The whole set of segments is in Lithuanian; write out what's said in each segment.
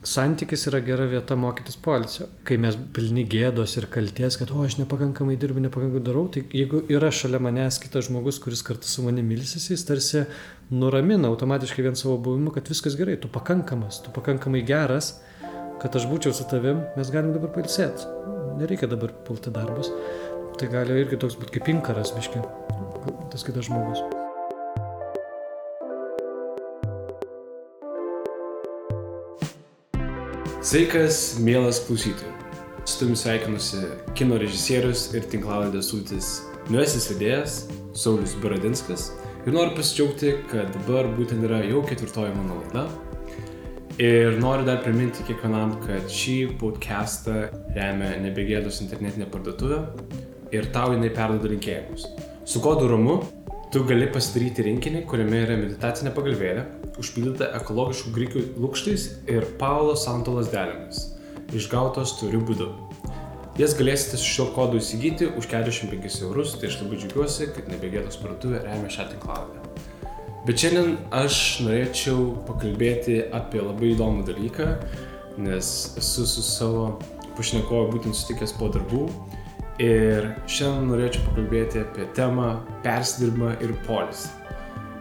santykis yra gera vieta mokytis poilsio. Kai mes pilni gėdos ir kalties, kad aš nepakankamai dirbu, nepakankamai darau, tai jeigu yra šalia manęs kitas žmogus, kuris kartu su manimi ilsisi, jis tarsi nuramina automatiškai vien savo buvimu, kad viskas gerai, tu pakankamas, tu pakankamai geras, kad aš būčiau su tavim, mes galim dabar pailsėti. Nereikia dabar pulti darbus. Tai gali irgi toks būti kaip inkaras, biški, tas kitas žmogus. Sveikas, mielas klausytojų. Su tavimi sveikinusi kino režisierius ir tinklalaidės Sultis naujasis vedėjas Saulius Baradinskas ir noriu pasidžiaugti, kad dabar būtent yra jau 4 mano laida. Ir noriu dar priminti kiekvienam, kad šį podcastą remia Nebegėdos internetinė parduotuvė ir tau jinai perduoda linkėjimus. Su kodu RAMU tu gali pasidaryti rinkinį, kuriame yra meditacinė pagalvėlė, užpildyta ekologiškų grikių lukštais ir Paulo Santo lazdelėmis, išgautos tvariu būdu. Jas galėsite su šiuo kodu įsigyti už 45 €, tai aš labai džiaugiuosi, kad Nebegėdos parduotuvė remia šią tinklalaidę. Bet šiandien aš norėčiau pakalbėti apie labai įdomų dalyką, nes esu su savo pašnekovu būtent sutikęs po darbų. Ir šiandien norėčiau pakalbėti apie temą persidirbimą ir poilsį.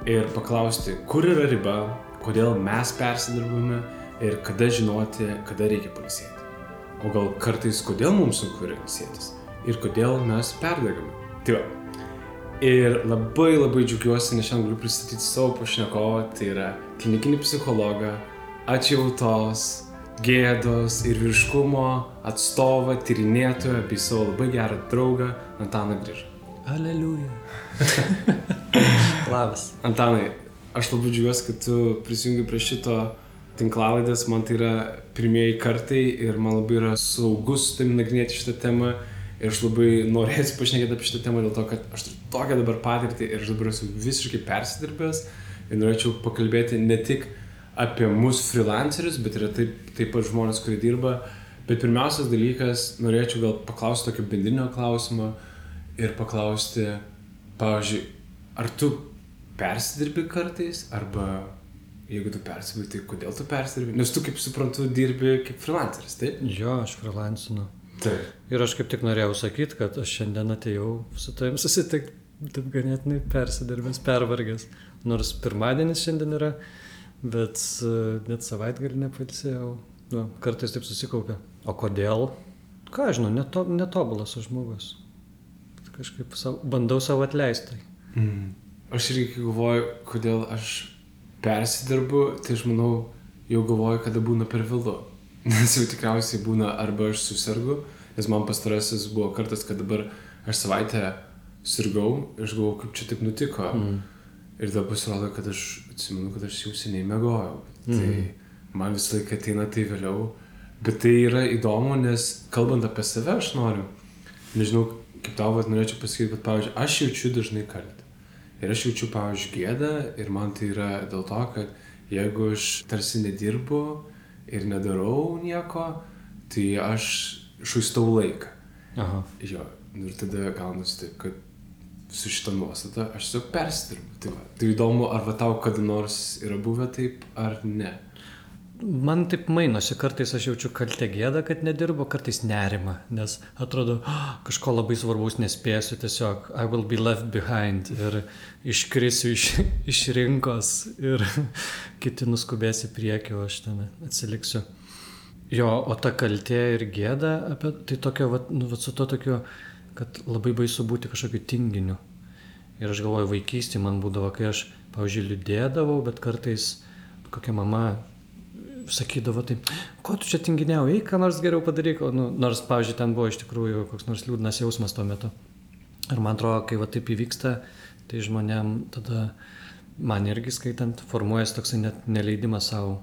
Ir paklausti, kur yra riba, kodėl mes persidirbame ir kada žinoti, kada reikia pailsėti. O gal kartais kodėl mums sunku yra ilsėtis ir kodėl mes perdegame. Tai va. Ir labai džiaugiuosi, nes šiandien galiu pristatyti savo pašnekovą, tai yra klinikinį psichologą, atjautos, gėdos ir vyriškumo atstovą, tyrinėtoją bei savo labai gerą draugą Antaną Grižą. Aleliuja. Labas. Antanai, aš labai džiaugiuosi, kad tu prisijungi prie šito tinklalaidės, man tai yra pirmieji kartai ir man labai yra saugus su tavimi nagrinėti šitą temą ir aš labai norėsiu pašnekėti apie šitą temą dėl to, kad aš turiu tokią dabar patirtį ir aš dabar esu visiškai persidirbęs ir norėčiau pakalbėti ne tik apie mūsų freelancerius, bet yra taip pat žmonės, kurie dirba. Bet pirmiausias dalykas, norėčiau gal paklausti tokio bendrinio klausimo ir paklausti, pavyzdžiui, ar tu persidirbi kartais, arba jeigu tu persidirbi, tai kodėl tu persidirbi? Nes tu, kaip suprantu, dirbi kaip freelanceris, taip? Jo, aš freelancinu. Taip. Ir aš kaip tik norėjau sakyti, kad aš šiandien atėjau su tavim susitikti, taip ganėtinai persidirbęs, pervargęs. Nors pirmadienis šiandien yra, bet savaitgalį nepailsėjau. Nu, kartais taip susikaupia. O kodėl? Ką aš žinau, netobulas aš žmogus. Kažkaip bandau savo atleisti. Aš irgi galvoju, kodėl aš persidirbu, tai aš manau, jau galvoju, kada būna per vėlu. Nes jau tikriausiai būna arba aš susirgu, nes man pastarasis buvo kartas, kad dabar aš savaitę sirgau ir aš galvoju, kaip čia taip nutiko. Ir tada pasirodo, kad aš atsimenu, kad aš jau seniai miegojau. Tai man visą laiką ateina tai vėliau. Bet tai yra įdomu, nes kalbant apie save aš noriu. Nežinau, kaip tau norėčiau pasakyti, bet pavyzdžiui, aš jaučiu dažnai kaltę. Ir aš jaučiu, pavyzdžiui, gėdą ir man tai yra dėl to, kad jeigu aš tarsi nedirbu ir nedarau nieko, tai aš švaistau laiką. Aha. Jo, ir tada gaunasi taip, kad su šitą nuostatą aš tiesiog persidirbu. Tai įdomu, ar va tau kada nors yra buvę taip, ar ne? Man taip mainosi, kartais aš jaučiu kaltę gėdą, kad nedirbu, kartais nerimą, nes atrodo, kažko labai svarbaus nespėsiu, tiesiog I will be left behind ir iškrisiu iš rinkos ir kiti nuskubės į priekį, o aš ten atsiliksiu. Jo, o ta kaltė ir gėda, tai tokio, su to tokiu, kad labai baisu būti kažkokiu tinginiu. Ir aš galvoju, vaikystėje man būdavo, kai aš, pavyzdžiui, liūdėdavau, bet kartais kokia mama sakydavo taip, ko tu čia tinginiau, eik, ką nors geriau padaryk, nors, pavyzdžiui, ten buvo iš tikrųjų koks nors liūdnas jausmas tuo metu. Ir man atrodo, kai va taip įvyksta, tai žmonėm tada, man irgi skaitant, formuojasi toksai net neleidimas savo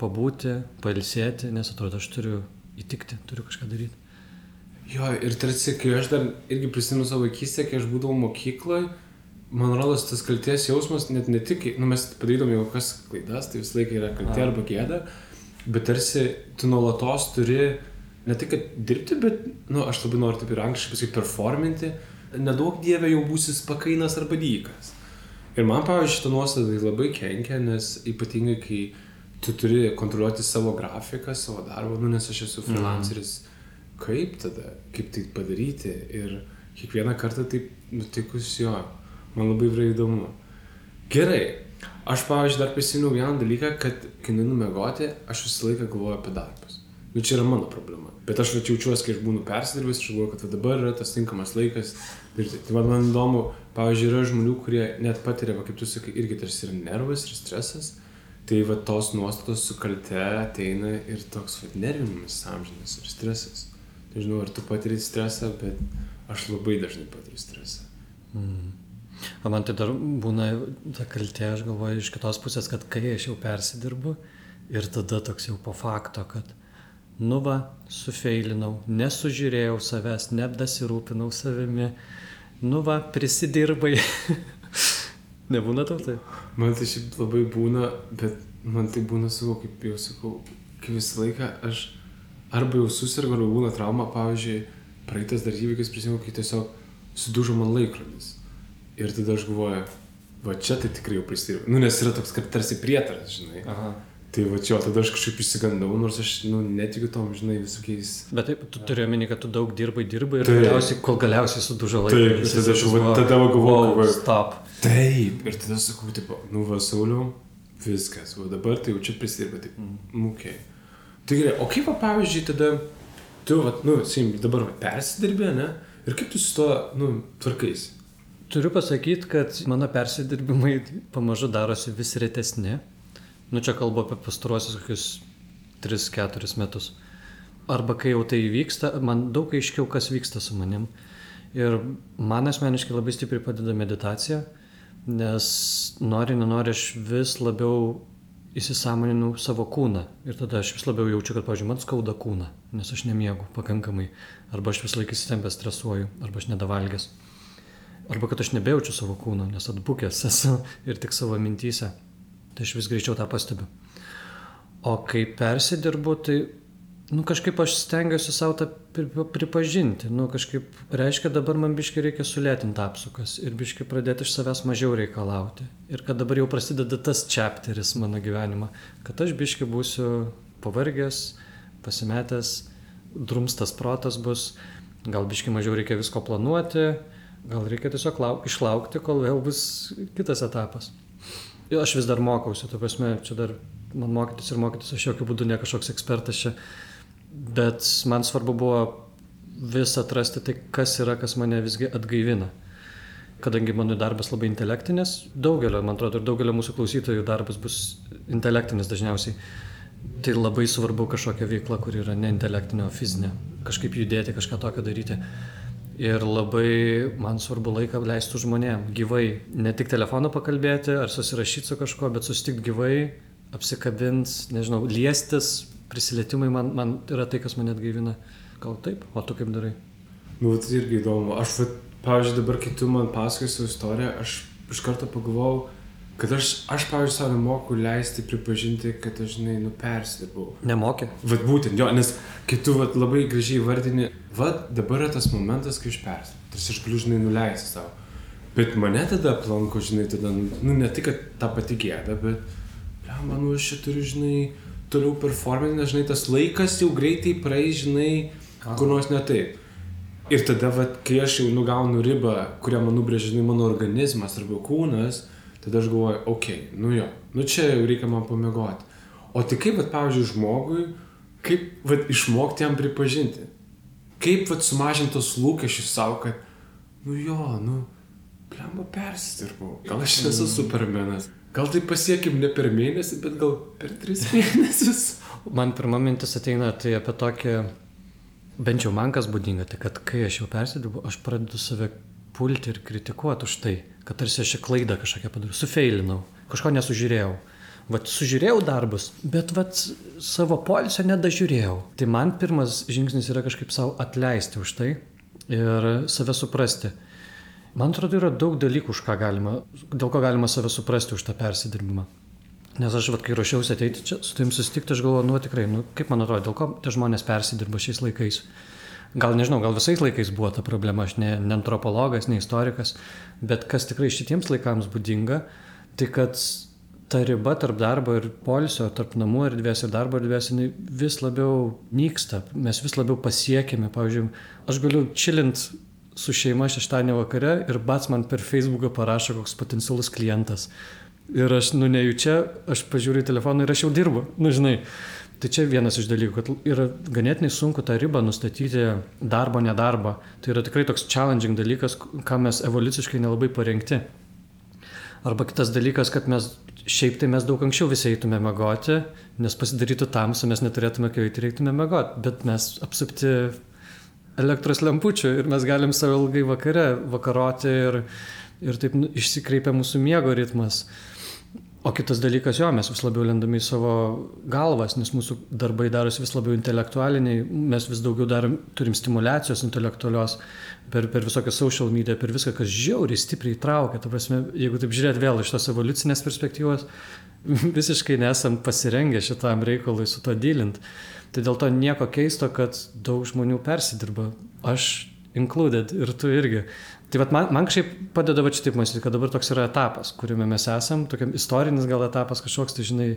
pabūti, pailsėti, nes atrodo, aš turiu įtikti, turiu kažką daryti. Jo, ir tarsi, kai aš dar irgi prisimenu savo vaikystę, kai aš būdavau mokykloje, man rodos, tas kaltės jausmas net ne tik, mes padarydavom jau kokias klaidas, tai visą laiką yra kaltė arba gėda, bet tarsi tu nuolatos turi ne tik, kad dirbti, bet, aš labai noriu taip ir angliškai pasakyti, performinti, nedaug dievė jau būsis pakainas arba dykas. Ir man, pavyzdžiui, šitą nuostatą labai kenkia, nes ypatingai, kai tu turi kontroliuoti savo grafiką, savo darbą, nu, nes aš esu freelanceris. Kaip tada? Kaip tai padaryti? Ir kiekvieną kartą taip nutikus jo. Man labai yra įdomu. Gerai. Aš, pavyzdžiui, dar prisimenu vieną dalyką, kad kai nueinu miegoti, aš visą laiką galvoju apie darbus. Nu, čia yra mano problema. Bet aš jaučiuosi, kai aš būnu persidirbęs, aš galvoju, kad dabar yra tas tinkamas laikas. Tai man įdomu, pavyzdžiui, yra žmonių, kurie net patiria, kaip tu sakai, irgi tarsi yra nervas ir stresas. Tai va tos nuostatos su kalte ateina ir toks nervinimas amžinas ir stresas. Tai žinau, ar tu patiri stresą, bet aš labai dažnai patiriu stresą. O man tai dar būna ta kaltė, aš galvoju iš kitos pusės, kad kai aš jau persidirbu ir tada toks jau po fakto, kad nu va, sufeilinau, nesužiūrėjau savęs, nedasirūpinau savimi, nu va, prisidirbai. Nebūna tau tai? Man tai šiaip labai būna, bet man tai būna savo, kaip jau sakau, kai visą laiką aš arba jau susirgu, arba būna trauma, pavyzdžiui, praeitas dar įvykis prisimenu, kai tiesiog sudužo man laikrodis. Ir tada aš galvoju, va čia tai tikrai jau prisidirbu. Nu, nes yra toks, kad tarsi prietaras, žinai. Aha. Tai va čia, tada aš kažkaip išsigandau, nors aš, netikiu tom, žinai, visokiais... Bet taip, tu turi omeny, kad tu daug dirbai ir kol galiausiai sudužo laikrodis. Taip, tada galvoju, stop. Taip, ir tada sakau, tipo, nu va, Sauliau, viskas, va dabar tai jau čia prisidirba, taip, okei. Tai gerai, o kaip, va, pavyzdžiui, tada tu, va, dabar va, persidirbė, ne? Ir kaip tu su to, tvarkaisi? Turiu pasakyti, kad mano persidirbimai pamažu darosi vis retesni. Čia kalbu apie pastaruosius kokius 3-4 metus. Arba kai jau tai vyksta, man daug aiškiau, kas vyksta su manim. Ir man asmeniškai labai stipriai padeda meditacija, nes nenori aš vis labiau įsisąmoninu savo kūną. Ir tada aš vis labiau jaučiu, kad, pavyzdžiui, man skauda kūną, nes aš nemiegu pakankamai. Arba aš vis laik įsitempęs stresuoju, arba aš nedavalgęs. Arba kad aš nebejaučiu savo kūno, nes atbukęs esu ir tik savo mintyse. Tai aš vis greičiau tą pastebiu. O kai persidirbu, tai kažkaip aš stengiuosi savo tą pripažinti. Kažkaip reiškia, dabar man biškai reikia sulėtinti apsukas ir biškai pradėti iš savęs mažiau reikalauti. Ir kad dabar jau prasideda tas chapteris mano gyvenimą, kad aš biškai būsiu pavargęs, pasimetęs, drumstas protas bus, gal biškai mažiau reikia visko planuoti, gal reikia tiesiog išlaukti, kol vėl bus kitas etapas. Ir aš vis dar mokausi, ta prasme, čia dar man mokytis, aš jokių būdų ne kažkoks ekspertas čia, bet man svarbu buvo vis atrasti tai, kas yra, kas mane visgi atgaivina. Kadangi mano darbas labai intelektinis, man atrodo, ir daugelio mūsų klausytojų darbas bus intelektinis dažniausiai, tai labai svarbu kažkokia veikla, kur yra ne intelektinė, o fizinė, kažkaip judėti, kažką tokio daryti. Ir labai man svarbu laiką leisti žmonėm, gyvai, ne tik telefonu pakalbėti ar susirašyti su kažko, bet susitikti gyvai, apsikabinti, nežinau, liestis, prisilietimai man yra tai, kas mane atgaivina. Gal taip? O tu kaip darai? Tai irgi įdomu. Aš, pavyzdžiui, dabar, kai tu man pasakoji savo istoriją, aš iš karto pagalvojau, kad aš pavyzdžiui, savo nemoku leisti pripažinti, kad aš, persidirbau. Nemokė? Būtent, jo, nes kai tu labai gražiai vardini, dabar yra tas momentas, kai aš persidirbu. Tarsi aš galiu, nuleisti savo. Bet mane tada aplanko, tada, ne tik, kad ta pati gėda, bet, manau, aš čia turiu, toliau performinti, nes, tas laikas jau greitai praeis, kur nors ne taip. Ir tada, kai aš jau gaunu ribą, kurią man nubrėžia, mano organizmas arba kūnas, tada aš galvoju, čia jau reikia man pamiegoti. O tai kaip, pavyzdžiui, žmogui, kaip išmokti jam pripažinti? Kaip sumažinti tos lūkesčius savo, kad, persidirbau. Gal aš nesu supermenas. Gal tai pasiekim ne per mėnesį, bet gal per 3 mėnesius. Man pirma mintis ateina tai apie tokį, bent jau man kas būdinga, tai kad kai aš jau persidirbu, aš pradedu save pulti ir kritikuoti už tai, kad tarsi aš klaidą kažkokią padariau, sufeilinau, kažko nesužiūrėjau. Sužiūrėjau darbus, bet savo poilsio nedažiūrėjau. Tai man pirmas žingsnis yra kažkaip savo atleisti už tai ir save suprasti. Man atrodo, yra daug dalykų, dėl ko galima save suprasti už tą persidirbimą. Nes aš, kai ruošiausi ateiti čia, su tavim susitikti, aš galvoju, tikrai, kaip man atrodo, dėl ko tie žmonės persidirba šiais laikais. Gal nežinau, gal visais laikais buvo ta problema, aš ne antropologas, ne istorikas, bet kas tikrai šitiems laikams būdinga, tai kad ta riba tarp darbo ir poilsio, tarp namų erdvės ir darbo erdvės, jinai vis labiau nyksta, mes vis labiau pasiekime. Pavyzdžiui, aš galiu chillint su šeima šeštadienį vakare ir bats man per Facebooką parašo koks potencialus klientas. Ir aš, nejučia, aš pažiūriu į telefoną ir aš jau dirbu, žinai. Tai čia vienas iš dalykų, kad yra ganėtinai sunku tą ribą nustatyti darbo, nedarbo. Tai yra tikrai toks challenging dalykas, ką mes evoliuciškai nelabai parengti. Arba kitas dalykas, kad šiaip tai mes daug anksčiau visi eitume miegoti, nes pasidarytų tamsu, mes neturėtume kai reiktume miegoti, bet mes apsupti elektros lempučių ir mes galim savo ilgai vakaroti ir taip išsikreipia mūsų miego ritmas. O kitas dalykas, mes vis labiau lendame į savo galvas, nes mūsų darbai darosi vis labiau intelektualiniai, mes vis daugiau turim stimulacijos intelektualios per visokią social media, per viską, kas žiauriai stipriai traukia. Ta prasme, jeigu taip žiūrėt vėl iš tos evoliucinės perspektyvos, visiškai nesam pasirengę šitam reikalui su to dylint. Tai dėl to nieko keisto, kad daug žmonių persidirba. Aš included ir tu irgi. Tai man kažkaip padeda šitaip mąstyti, kad dabar toks yra etapas, kuriame mes esam, tokiam istorinis gal etapas kažkoks, tai žinai,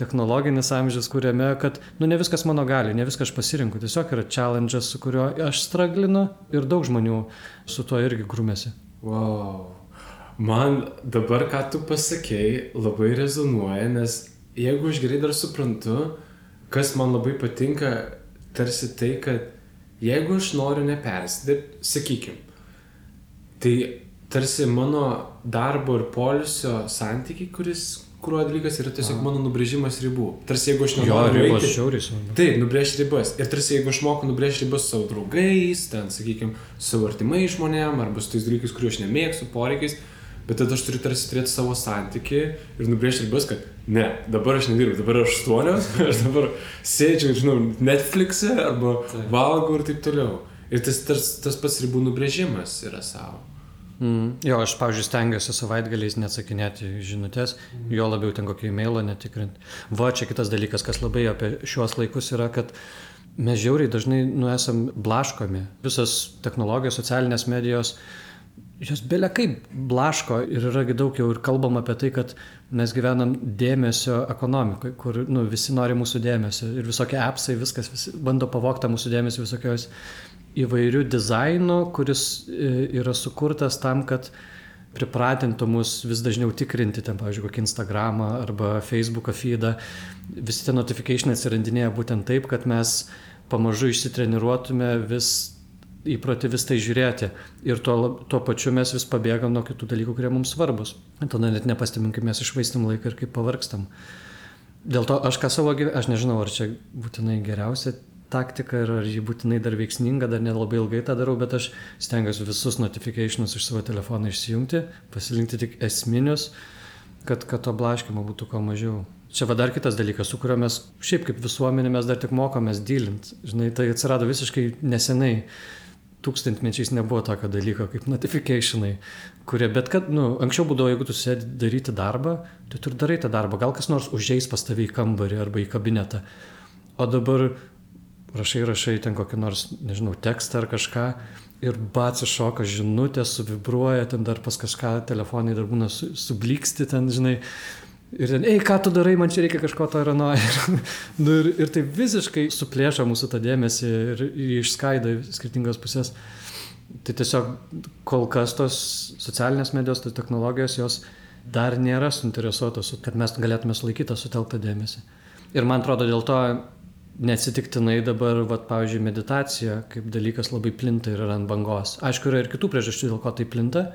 technologinis amžius, kuriame, kad, ne viskas mano gali, ne viską aš pasirinku, tiesiog yra challenge'as, su kuriuo aš straglinu ir daug žmonių su tuo irgi grūmėsi. Wow. Man dabar, ką tu pasakei, labai rezonuoja, nes jeigu aš gerai dar suprantu, kas man labai patinka, tarsi tai, kad jeigu aš noriu nepersidirbti, sakykim, tai tarsi mano darbo ir poilsio santykiai, kurio dalykas yra tiesiog mano nubrėžimas ribų. Tarsi jeigu aš nenoriu eiti... Taip, nubrėžti ribas. Ir tarsi jeigu aš moku nubrėžti ribas su savo draugais, ten, sakykim, su savo artimai žmonėm, arba su tais dalykais, kuriuo aš nemėgstu, poreikiais, bet tada aš turiu tarsi turėti savo santykį ir nubrėžti ribas, kad ne, dabar aš nedirbu, dabar aš 8, aš dabar sėdžiu, Netflix'e arba valgau ir taip toliau. Ir tas pats ribų nubrėžimas yra savo. Jo, aš, pavyzdžiui, stengiuosi savaitgaliais neatsakinėti žinutės, jo labiau ten kokį e-mailą netikrinti. Čia kitas dalykas, kas labai apie šiuos laikus yra, kad mes žiauriai dažnai esam blaškomi. Visos technologijos, socialinės medijos, jos belia kaip blaško ir yra daug jau ir kalbam apie tai, kad mes gyvenam dėmesio ekonomikoje, kur visi nori mūsų dėmesio ir visokie appsai, visi bando pavogti mūsų dėmesį visokios įvairių dizainų, kuris yra sukurtas tam, kad pripratintų mus vis dažniau tikrinti, ten, pavyzdžiui, kokį Instagramą arba Facebooką feedą. Visi tie notificationai atsirandinėja būtent taip, kad mes pamažu išsitreniruotume įprotį vis tai žiūrėti. Ir tuo pačiu mes vis pabėgam nuo kitų dalykų, kurie mums svarbus. Tada net nepastebim, kaip mes išvaistam laiką ir kaip pavargstam. Dėl to aš aš nežinau, ar čia būtinai geriausia taktika ir ar ji būtinai dar veiksminga, dar nelabai ilgai tą darau, bet aš stengiuosi visus notificationus iš savo telefono išsijungti, pasirinkti tik esminius, kad to blaškymo būtų kuo mažiau. Čia dar kitas dalykas, su kuriuo mes šiaip kaip visuomenė mes dar tik mokomės dylint. Žinai, tai atsirado visiškai nesenai. Tūkstantmečiais nebuvo tokio dalyko kaip notificationai, kurie, bet kad, anksčiau būdavo, jeigu tu sėdi daryti darbą, tai tu ir darai tą darbą. Gal kas nors užeis pas tave į kambarį arba į kabinetą. O dabar rašai ten kokį nors, nežinau, tekstą ar kažką ir bats iššoka žinutė, suvibruoja, ten dar pas kažką telefonai dar būna subliksti ten, žinai. Ir ten, ką tu darai, man čia reikia kažko to ir ano. Ir tai visiškai suplėša mūsų tą dėmesį ir išskaido į skirtingas pusės. Tai tiesiog kol kas tos socialinės medijos, tos technologijos, jos dar nėra suinteresuotos, kad mes galėtume sulaikyti tą sutelktą dėmesį. Ir man atrodo, dėl to neatsitiktinai dabar, pavyzdžiui, meditacija kaip dalykas labai plinta ir yra ant bangos. Aišku, yra ir kitų priežasčių, dėl ko tai plinta.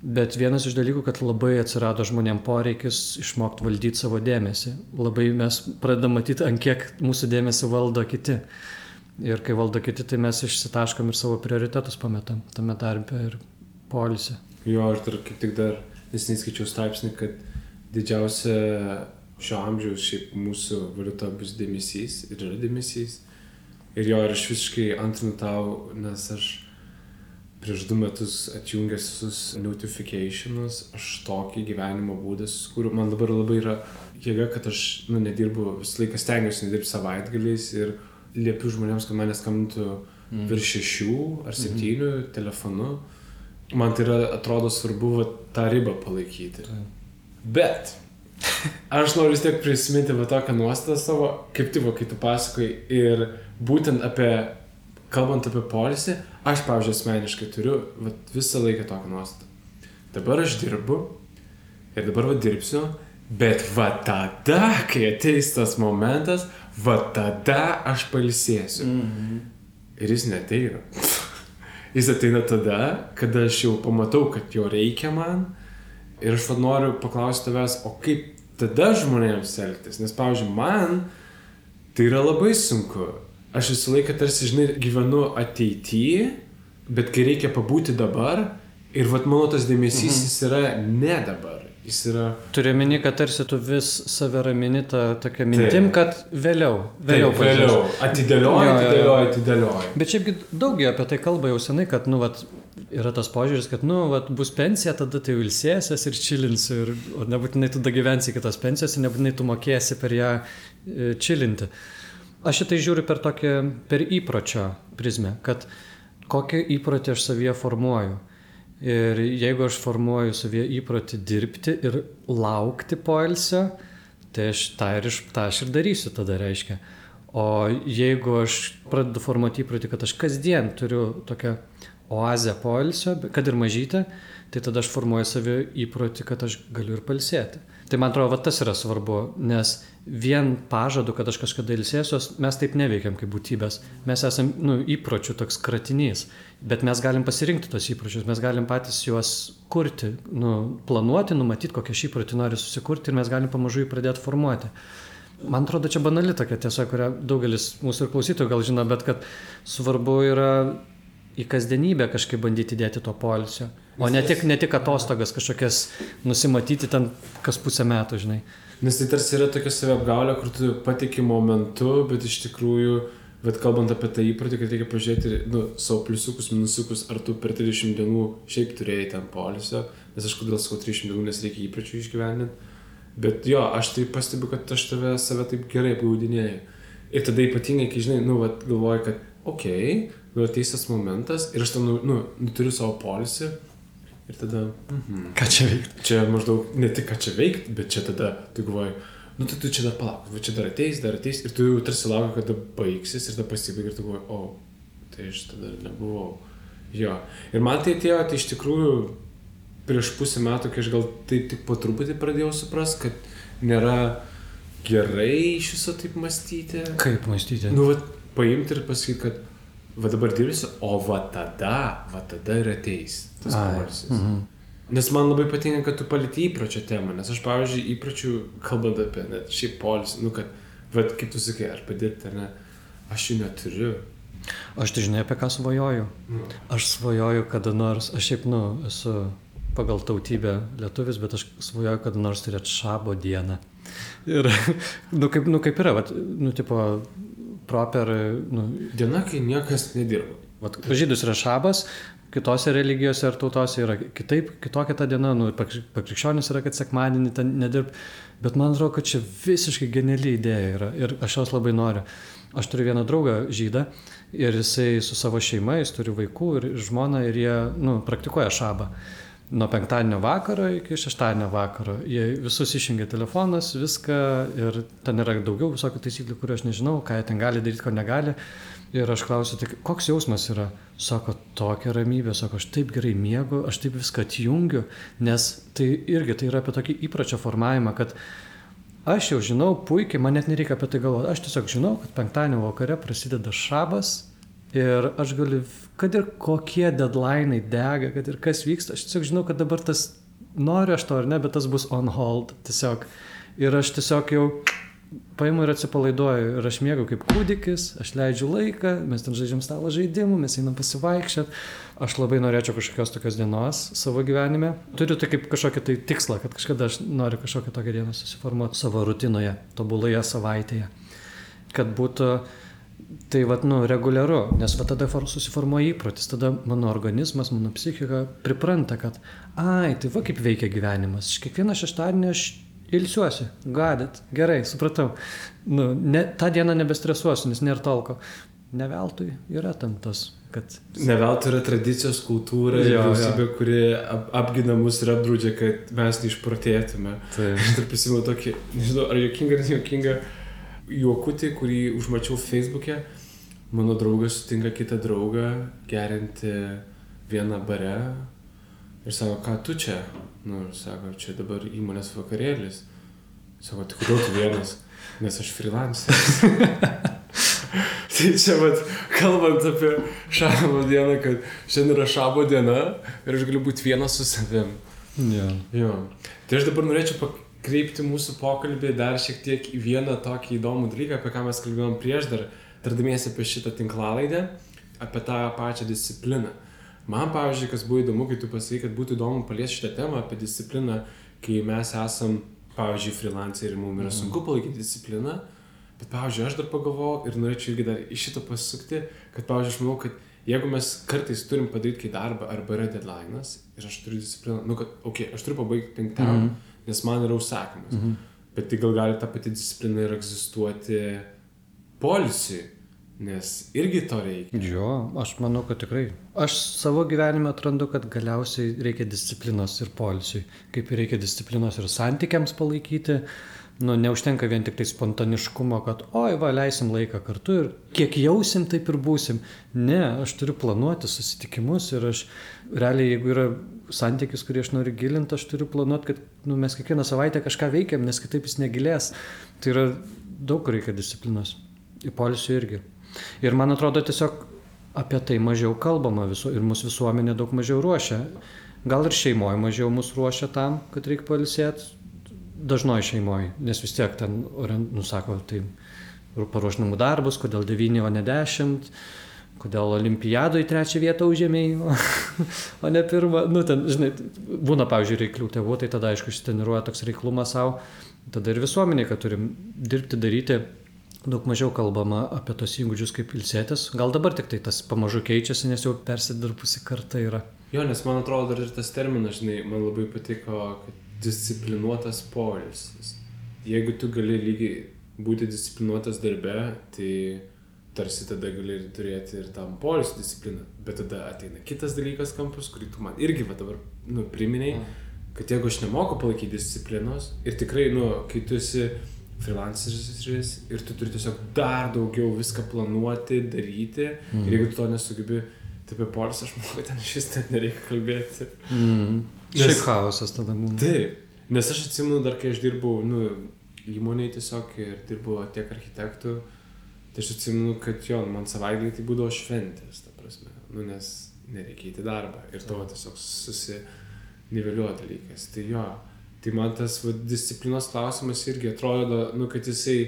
Bet vienas iš dalykų, kad labai atsirado žmonėm poreikis išmokti valdyti savo dėmesį. Labai mes pradedam matyti, ant kiek mūsų dėmesį valdo kiti. Ir kai valdo kiti, tai mes išsitaškom ir savo prioritetus pametam tame darbe ir poilsį. Jo, aš dar kaip tik dar neskaičiau straipsnį, kad didžiausia šio amžiaus šiaip mūsų valiuta bus dėmesys ir yra dėmesys. Ir jo, ir aš visiškai antrinu tau, nes aš prieš 2 metus atjungęs visus notificationus, aš tokį gyvenimo būdą susikūriau. Man dabar labai yra jėga, kad aš nedirbu, visą laiką stengiuosi nedirbti savaitgaliais ir liepiu žmonėms, kad mane skambintų virš 6 ar 7 telefonu. Man tai yra, atrodo, svarbu tą ribą palaikyti. Bet aš noriu vis tiek prisiminti va tokią nuostatą savo, kaip tai, kai tu pasakai, ir būtent kalbant apie poilsį, aš, pavyzdžiui, asmeniškai turiu visą laiką tokią nuostatą. Dabar aš dirbu ir dabar dirbsiu, bet tada, kai ateis tas momentas, tada aš pailsėsiu. Ir jis neateina. Jis ateina tada, kada aš jau pamatau, kad jo reikia man. Ir aš noriu paklausti tavęs, o kaip tada žmonėms elgtis? Nes, pavyzdžiui, man tai yra labai sunku. Aš visą laiką tarsi, gyvenu ateityje, bet kai reikia pabūti dabar, ir mano tas dėmesys jis yra ne dabar. Jis yra... Turiu meni, kad tarsi tu vis save ramini tokia mintim, kad vėliau. Atidėlioji. Bet šiaipgi daugiau apie tai kalba jau senai, kad, yra tas požiūris, kad, bus pensija, tada tai ilsėsies ir čilinsi, o nebūtinai tu gyvensi iki tos pensijos ir nebūtinai tu mokėsi per ją čilinti. Aš šitai žiūriu per įpročio prizmę, kad kokį įprotį aš savyje formuoju. Ir jeigu aš formuoju savyje įprotį dirbti ir laukti poilsio, tai aš ir darysiu tada reiškia. O jeigu aš pradedu formuoti įprotį, kad aš kasdien turiu tokią oazę poilsio, kad ir mažytę, tai tada aš formuoju savyje įprotį, kad aš galiu ir pailsėti. Tai man atrodo, tas yra svarbu, nes vien pažadu, kad aš kažkada ilsėsiuos, mes taip neveikiam kaip būtybės. Mes esam įpročių toks kratinys, bet mes galim pasirinkti tos įpročius, mes galim patys juos kurti, planuoti, numatyti, kokią šį įprotį nori susikurti ir mes galim pamažu jį pradėti formuoti. Man atrodo, čia banali tokia tiesa, kurią daugelis mūsų ir klausytojų gal žino, bet kad svarbu yra į kasdienybę kažkaip bandyti dėti to poilsio, o ne tik atostogas kažkokias nusimatyti ten kas pusę metų, Nes tai tarsi yra tokia saviapgaulė, kur tu patiki momentu, bet iš tikrųjų, kalbant apie tą įprotį, kad reikia pažiūrėti savo pliusiukus, minusiukus, ar tu per 30 dienų šiaip turėjai ten poilsio, nes aš kodėl sakau 30 dienų, nes reikia įpročių išgyveninti. Bet jo, aš tai pastebiu, kad aš save taip gerai apgaudinėju. Ir tada ypatingai, kai galvoju, kad ateis tas momentas ir aš ten turiu savo poilsį ir tada... Ką čia veikti? Čia maždaug ne tik ką čia veikti, bet čia tada tu galvoji, tai tu čia dar palauk, čia dar ateis ir tu jau tarsi lauki, kada baigsis ir tada pasibaigia ir tu galvoji, tai aš tada nebuvau. Jo. Ir man tai atėjo, tai iš tikrųjų prieš pusę metų, kai aš gal taip tik po truputį pradėjau suprasti, kad nėra gerai iš viso taip mąstyti. Kaip mąstyti? Paimti ir pasakyti, kad dabar dirbsiu, o tada ir ateis tas poilsis. Nes man labai patinka, kad tu palieti įpročio temą, nes aš, pavyzdžiui, įpročių, kalbant apie net šiaip poilsį, kad, kaip tu sakai, ar padirbti, ar ne, aš jų neturiu. Aš tai žinai, apie ką svajoju. Aš svajoju kada nors, aš šiaip, esu pagal tautybę lietuvis, bet aš svajoju kada nors turėti šabo dieną. Ir, kaip yra, tipo, proper... Diena, kai niekas nedirba. Žydus yra šabas, kitose religijose ar tautose yra kitokia ta diena, pakrikščionis yra, kad sekmadienį ten nedirb, bet man atrodo, kad čia visiškai geniali idėja yra ir aš jos labai noriu. Aš turiu vieną draugą žydą ir jisai su savo šeima, jis turi vaikų ir žmoną ir jie, praktikuoja šabą. Nuo penktadienio vakaro iki šeštadienio vakaro. Jie visus išjungia telefonas, viską ir ten yra daugiau visokių taisyklių, kurių aš nežinau, ką jie ten gali daryti, ko negali. Ir aš klausiu, tai koks jausmas yra? Sako, tokia ramybė, sako, aš taip gerai miegu, aš taip viską atjungiu, nes tai irgi tai yra apie tokį įpročio formavimą, kad aš jau žinau puikiai, man net nereikia apie tai galvoti, aš tiesiog žinau, kad penktadienio vakare prasideda šabas ir aš galiu, kad ir kokie deadline'ai dega, kad ir kas vyksta, aš tiesiog žinau, kad dabar tas, noriu aš to ar ne, bet tas bus on hold tiesiog. Ir aš tiesiog jau paimu ir atsipalaiduoju ir aš miegu kaip kūdikis, aš leidžiu laiką, mes ten žaidžiam stalo žaidimų, mes einam pasivaikščiot. Aš labai norėčiau kažkokios tokios dienos savo gyvenime. Turiu tai kaip kažkokį tai tikslą, kad kažkada aš noriu kažkokią tokią dieną susiformuoti savo rutinoje, tobuloje savaitėje. Kad būtų tai reguliaru, nes tada susiformuoja įprotis, tada mano organizmas, mano psichika pripranta, kad tai kaip veikia gyvenimas. Kiekvieną šeštadienį aš ilsiuosi, gerai, supratau. Tą dieną nebestresuosiu, nes nėra talko. ne veltui yra tam tas, kad... Ne veltui yra tradicijos kultūra ir vyriausybė, kuri apgina mus ir apdraudžia, kad mes neišprotėtume. Aš dar prisimenu tokį, nežinau, ar juokingą juokutį, kurį užmačiau Facebook'e. Mano draugas sutinka kitą draugą gerinti vieną bare ir sako, ką tu čia? Nu, ir sako, čia dabar įmonės vakarėlis. Sako, tai kodėl tu vienas? Nes aš freelanceris. Tai čia, kalbant apie šabo dieną, kad šiandien yra šabo diena ir aš galiu būti vienas su savim. Jo. Tai aš dabar norėčiau pakreipti mūsų pokalbį dar šiek tiek į vieną tokį įdomų dalyką, apie ką mes kalbėjom prieš dar tardamiesi apie šitą tinklalaidę, apie tą pačią discipliną. Man, pavyzdžiui, kas buvo įdomu, kai tu pasakai, kad būtų įdomu paliesti šitą temą apie discipliną, kai mes esam, pavyzdžiui, freelanceriai ir mums yra sunku palaikyti discipliną. Bet, pavyzdžiui, aš dar pagalvojau ir norėčiau irgi dar iš šito pasukti, kad, pavyzdžiui, aš manau, kad jeigu mes kartais turim padaryti kai darbą arba yra deadline'as ir aš turiu discipliną, kad, aš turiu pabaigti 5, nes man yra užsakymas. Bet tai gal gali ta pati disciplina ir egzistuoti poilsiui, nes irgi to reikia. Jo, aš manau, kad tikrai. Aš savo gyvenime atrandu, kad galiausiai reikia disciplinos ir poilsiui. Kaip ir reikia disciplinos ir santykiams palaikyti. Neužtenka vien tik tai spontaniškumo, kad leisim laiką kartu ir kiek jausim, taip ir būsim. Ne, aš turiu planuoti susitikimus ir aš realiai, jeigu yra santykis, kurį aš noriu gilinti, aš turiu planuoti, kad mes kiekvieną savaitę kažką veikiam, nes kitaip jis negilės. Tai yra daug reikia disciplinos. Į poilsį irgi. Ir man atrodo tiesiog apie tai mažiau kalbama ir mūsų visuomenė daug mažiau ruošia. Gal ir šeimoje mažiau mus ruošia tam, kad reikia pailsėti. Dažnoji šeimoje, nes vis tiek ten, sako, tai paruoš namų darbus, kodėl 9, o ne 10, kodėl olimpiadoje 3 vietą užėmėjai, o ne 1. Ten, žinai, būna, pavyzdžiui, reiklių tėvų, tai tada, aišku, ištreniruoja toks reiklumas savo. Tada ir visuomenė, kad turim dirbti, daryti, daug mažiau kalbama apie tos įgūdžius kaip ilsėtis. Gal dabar tik tai tas pamažu keičiasi, nes jau persidirbusi karta yra. Jo, nes man atrodo dar ir tas terminas, žinai, man labai patiko, kad disciplinuotas poilsis. Jeigu tu gali lygiai būti disciplinuotas darbe, tai tarsi tada gali ir turėti ir tam poilsio discipliną. Bet tada ateina kitas dalykas kampus, kurį tu man irgi dabar priminei, kad jeigu aš nemoku palaikyti disciplinos ir tikrai, kai tu esi freelanceris ir tu turi tiesiog dar daugiau viską planuoti, daryti, ir jeigu tu to nesugebi, tai apie poilsį aš manau, kad ten šis net nereikia kalbėti. Šiaip chaosas tada būna. Taip, nes aš atsimenu dar, kai aš dirbau įmonėje tiesiog ir dirbau tiek architektų, tai aš atsimenu, kad man savaitgalį tai būdavo šventės, ta prasme, nes nereikia įti darbą ir to tiesiog susiniveliuoja dalykas. Tai man tas disciplinos klausimas irgi atrodo, kad jisai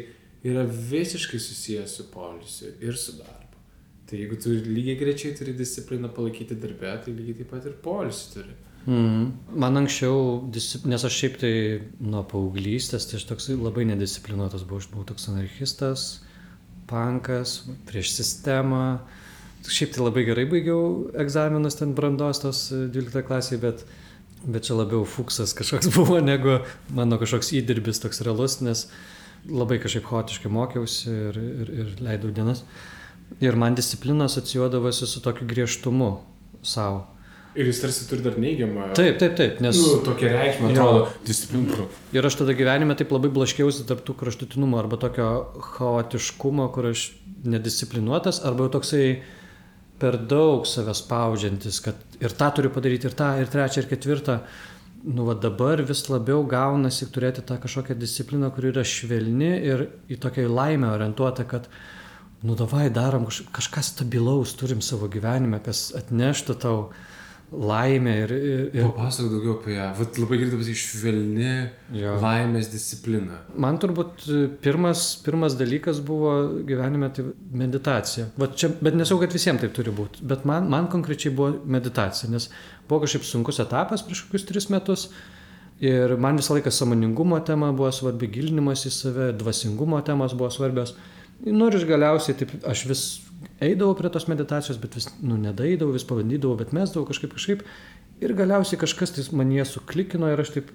yra visiškai susijęs su poilsiu ir su darbu. Tai jeigu tu lygiai grečiai turi discipliną palaikyti darbe, tai lygiai taip pat ir poilsį turi. Man anksčiau, nes aš šiaip tai nuo paauglystės, tai aš toks labai nedisciplinuotas buvau, aš buvau toks anarchistas, punkas, prieš sistemą. Šiaip tai labai gerai baigiau egzaminus ten brandos tos 12 klasėje, bet čia labiau fuksas kažkoks buvo, negu mano kažkoks įdirbis toks realus, nes labai kažkaip chaotiškai mokiausi ir leidau dienas. Ir man disciplina asocijuodavosi su tokiu griežtumu savo. Ir jis tarsi turi dar neigiamą... Taip, nes... tokia reikšmė, atrodo, disciplina. Ir aš tada gyvenime taip labai blaškiausi tarp tų kraštutinumo arba tokio chaotiškumo, kur aš nedisciplinuotas, arba jau toksai per daug save spaudžiantis, kad ir tą turiu padaryti, ir tą, ir trečią, ir ketvirtą. Dabar vis labiau gaunasi turėti tą kažkokią discipliną, kuri yra švelni ir į tokią laimę orientuota, kad davai darom kažką stabilaus, turim savo gyvenime, kas atneštų tau laimę ir... Papasakok daugiau apie ją. Labai gerai pasakyti švelni laimės disciplina. Man turbūt pirmas dalykas buvo gyvenime tai meditacija. Bet nesau, kad visiems taip turi būti. Bet man konkrečiai buvo meditacija, nes buvo kažkaip sunkus etapas prieš kokius 3 metus. Ir man visą laiką sąmoningumo tema buvo svarbi, gilinimas į save, dvasingumo temos buvo svarbios. Ir galiausiai taip, aš vis eidavau prie tos meditacijos, bet vis nedaeidavau, vis pabandydavau, bet mesdavau kažkaip. Ir galiausiai kažkas tai man jie suklikino ir aš taip,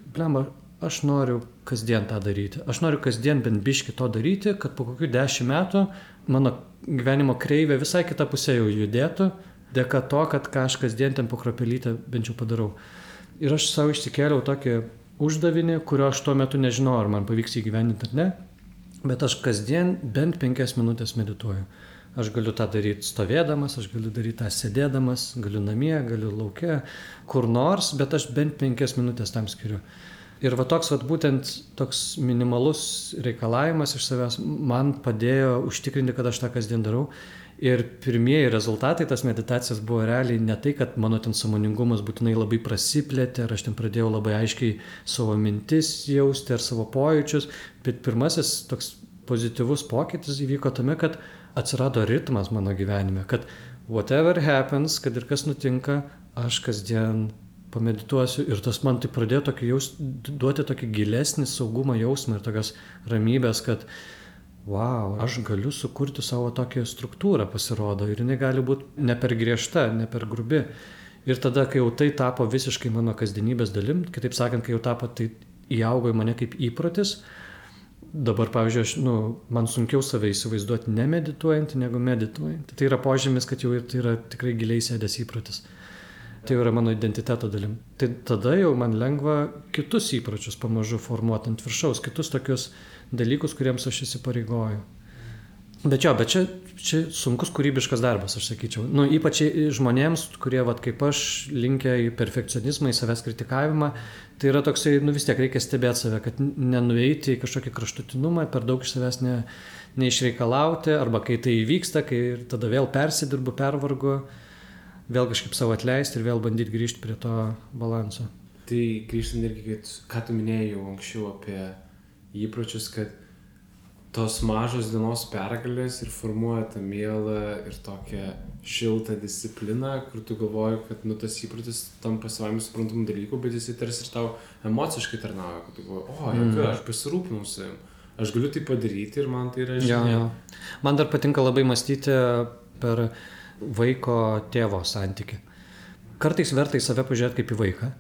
aš noriu kasdien tą daryti. Aš noriu kasdien bent biškį to daryti, kad po kokių 10 metų mano gyvenimo kreivė visai kitą pusę jau judėtų, dėka to, kad ką aš kasdien ten po kropelytę bent jau padarau. Ir aš savo išsikėliau tokį uždavinį, kurio aš tuo metu nežinau, ar man pavyks įgyvendinti ar ne, bet aš kasdien bent 5 minutės medituoju. Aš galiu tą daryti stovėdamas, aš galiu daryti tą sėdėdamas, galiu namie, galiu lauke, kur nors, bet aš bent 5 minutės tam skiriu. Ir va toks, būtent toks minimalus reikalavimas iš savęs man padėjo užtikrinti, kad aš tą kasdien darau. Ir pirmieji rezultatai tas meditacijas buvo realiai ne tai, kad mano ten sąmoningumas būtinai labai prasiplėtė, ar aš ten pradėjau labai aiškiai savo mintis jausti ar savo pojūčius, bet pirmasis toks pozityvus pokytis įvyko tame, kad atsirado ritmas mano gyvenime, kad whatever happens, kad ir kas nutinka, aš kasdien pamedituosiu ir tas man tai pradėjo duoti tokį gilesnį saugumo jausmą ir tokios ramybės, kad wow, aš galiu sukurti savo tokią struktūrą, pasirodo, ir jinai gali būti ne per griežta, ne per grubi. Ir tada, kai jau tai tapo visiškai mano kasdienybės dalim, kitaip sakant, kai jau tapo, tai įaugo į mane kaip įprotis. Dabar, pavyzdžiui, man sunkiau save įsivaizduoti nemedituojantį negu medituojantį. Tai yra požymis, kad jau tai yra tikrai giliai sėdęs įprotis. Tai yra mano identiteto dalim. Tai tada jau man lengva kitus įpročius pamažu formuoti ant viršaus, kitus tokius dalykus, kuriems aš įsipareigoju. Bet čia sunkus kūrybiškas darbas, aš sakyčiau. Ypač žmonėms, kurie, kaip aš, linkę į perfekcionizmą, į savęs kritikavimą, tai yra toksai, vis tiek reikia stebėti save, kad nenueiti į kažkokį kraštutinumą, per daug iš savęs neišreikalauti, arba kai tai įvyksta, kai tada vėl persidirbu, pervargu, vėl kažkaip savo atleisti ir vėl bandyti grįžti prie to balanso. Tai grįžtant irgi, ką tu minėjai jau anksčiau apie įpročius, kad tos mažos dienos pergalės ir formuoja tą mielą ir tokią šiltą discipliną, kur tu galvoji, kad tas įprotis tampa savaime suprantamų dalykų, bet jis tarsi ir tau emociškai tarnauja, kad tu galvoji, aš pasirūpinau savim, aš galiu tai padaryti ir man tai yra žinia. Man dar patinka labai mąstyti per vaiko tėvo santykį. Kartais verta į save pažiūrėti kaip į vaiką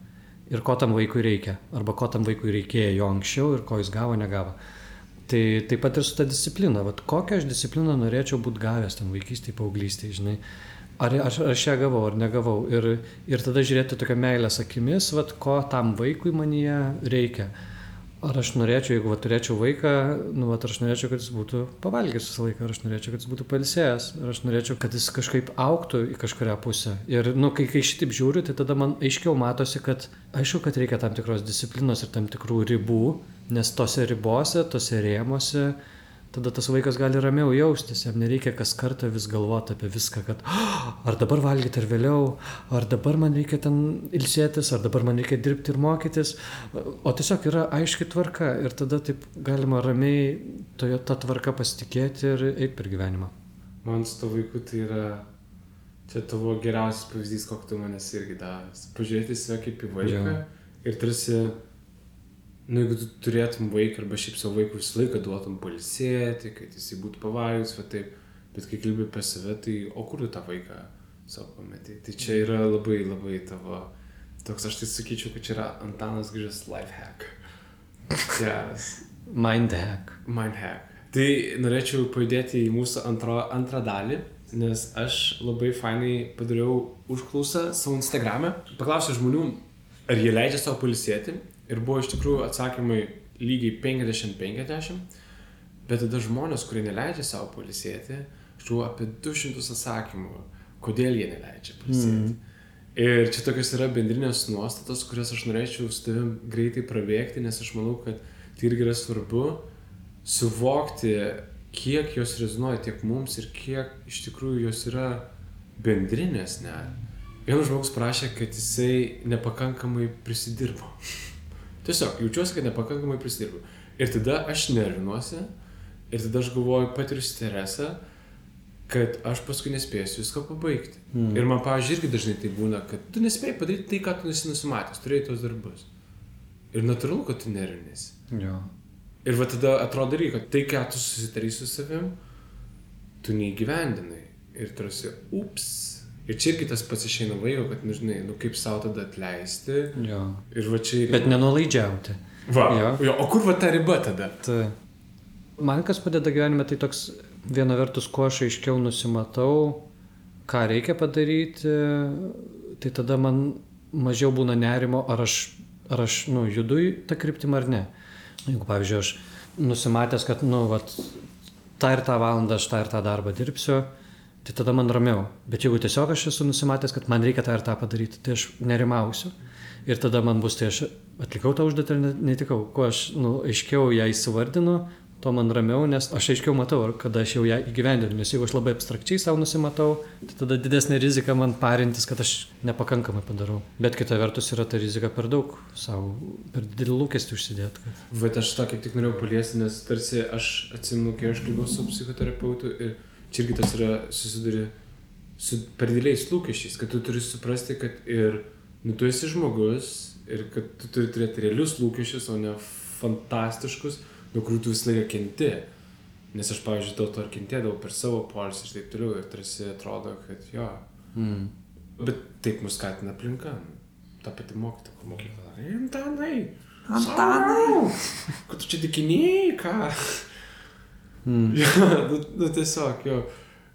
ir ko tam vaikui reikia, arba ko tam vaikui reikėjo jo anksčiau ir ko jis gavo, negavo. Tai taip pat ir su ta disciplina. Kokią aš discipliną norėčiau būti gavęs ten vaikystėje, paauglystėje, žinai. Ar aš ją gavau, ar negavau. Ir tada žiūrėti tokią meilės akimis, ko tam vaikui manyje reikia. Ar aš norėčiau, jeigu turėčiau vaiką, ar aš norėčiau, kad jis būtų pavalgęs visą laiką, ar aš norėčiau, kad jis būtų pailsėjęs, ar aš norėčiau, kad jis kažkaip augtų į kažkurią pusę. Ir kai šitaip žiūriu, tai tada man aiškiau matosi, kad aišku, kad reikia tam tikros disciplinos ir tam tikrų ribų, nes tose ribose, tose rėmose, tada tas vaikas gali ramiau jaustis, jam nereikia kas kartą vis galvoti apie viską, kad ar dabar valgyti ar vėliau, ar dabar man reikia ten ilsėtis, ar dabar man reikia dirbti ir mokytis, o tiesiog yra aiški tvarka ir tada taip galima ramiai tą tvarką pasitikėti ir eiti per gyvenimą. Man su to vaiku tai yra, čia tavo geriausias pavyzdys, kokį tu manęs irgi davęs. Pažiūrėti save kaip į vaiką ir tarsi, jeigu tu turėtum vaiką arba šiaip savo vaikų visą laiką duotum pailsėti, kad jisai būtų pavalgęs, bet kai kalbi apie save, tai o kur tu tą vaiką savo pametei? Tai čia yra labai, labai tavo, toks aš tai sakyčiau, kad čia yra Antanas Grižas life hack. Geras. Mind hack. Tai norėčiau pajudėti į mūsų antrą dalį, nes aš labai fainai padariau užklausą savo Instagram'e. Paklausiau žmonių, ar jie leidžia savo pailsėti. Ir buvo iš tikrųjų atsakymai lygiai 50-50, bet tada žmonės, kurie neleidžia savo pailsėti, aš turiu apie 200 atsakymų, kodėl jie neleidžia pailsėti. Ir čia tokios yra bendrinės nuostatos, kurias aš norėčiau su tavim greitai prabėgti, nes aš manau, kad tai irgi yra svarbu suvokti, kiek jos rezonuoja tiek mums ir kiek iš tikrųjų jos yra bendrinės net. Vienas žmogus prašė, kad jisai nepakankamai prisidirbo. Tiesiog, jaučiuosi, kad nepakankamai prisidirbu. Ir tada aš nervinuosi, ir tada aš galvoju, patiriu stresą, kad aš paskui nespėsiu viską pabaigti. Ir man, pavyzdžiui, irgi dažnai tai būna, kad tu nespėjai padaryti tai, ką tu nusimatęs, turėjai tos darbus. Ir natūralu, kad tu nervinėsi. Ir tada atrodo irgi, kad tai, ką tu susitarai su savim, tu neįgyvendinai. Ir tarsi, ups. Ir čia irgi tas pats išeina vaiko, kad, žinai, kaip savo tada atleisti. Ir va čia irgi... Bet nenulaidžiauti. Va, Jo. jo, o kur va ta riba tada? Tai man kas padeda gyvenime, tai toks viena vertus, kuo aš aiškiau nusimatau, ką reikia padaryti, tai tada man mažiau būna nerimo, ar aš judu į tą kryptimą ar ne. Jeigu, pavyzdžiui, aš nusimatęs, kad, tą ir tą valandą aš tą ir tą darbą dirbsiu, tai tada man ramiau. Bet jeigu tiesiog aš esu nusimatęs, kad man reikia tą ir tą padaryti, tai aš nerimausiu. Ir tada man bus, tai aš atlikau tą užduotį ar netikau. Kuo aš aiškiau ją įsivardinu, to man ramiau, nes aš aiškiau matau, kada aš jau ją įgyvendinu. Nes jeigu aš labai abstrakčiai savo nusimatau, tai tada didesnė rizika man parintis, kad aš nepakankamai padarau. Bet kita vertus yra ta rizika per daug savo, per didelį lūkestį užsidėti. Kad... Bet aš tą kaip tik norėjau paliesti, nes tarsi aš atsimenu, kai aš kalbėjau su psichoterapeutu ir čia irgi tas yra susiduri su per dideliais lūkesčiais, kad tu turi suprasti, kad ir tu esi žmogus ir kad tu turi turėti realius lūkesčius, o ne fantastiškus, nuo kurių tu visą laiką kenti. Nes aš, pavyzdžiui, dėl to ir kentėdavau per savo poilsį ir taip toliau ir tarsi atrodo, kad jo. Bet taip mus skatina aplinka. Ta pati mokytoja, kur mokykla. Antanai! Kad tu čia dikiniai, ką? Jo, tiesiog, jo.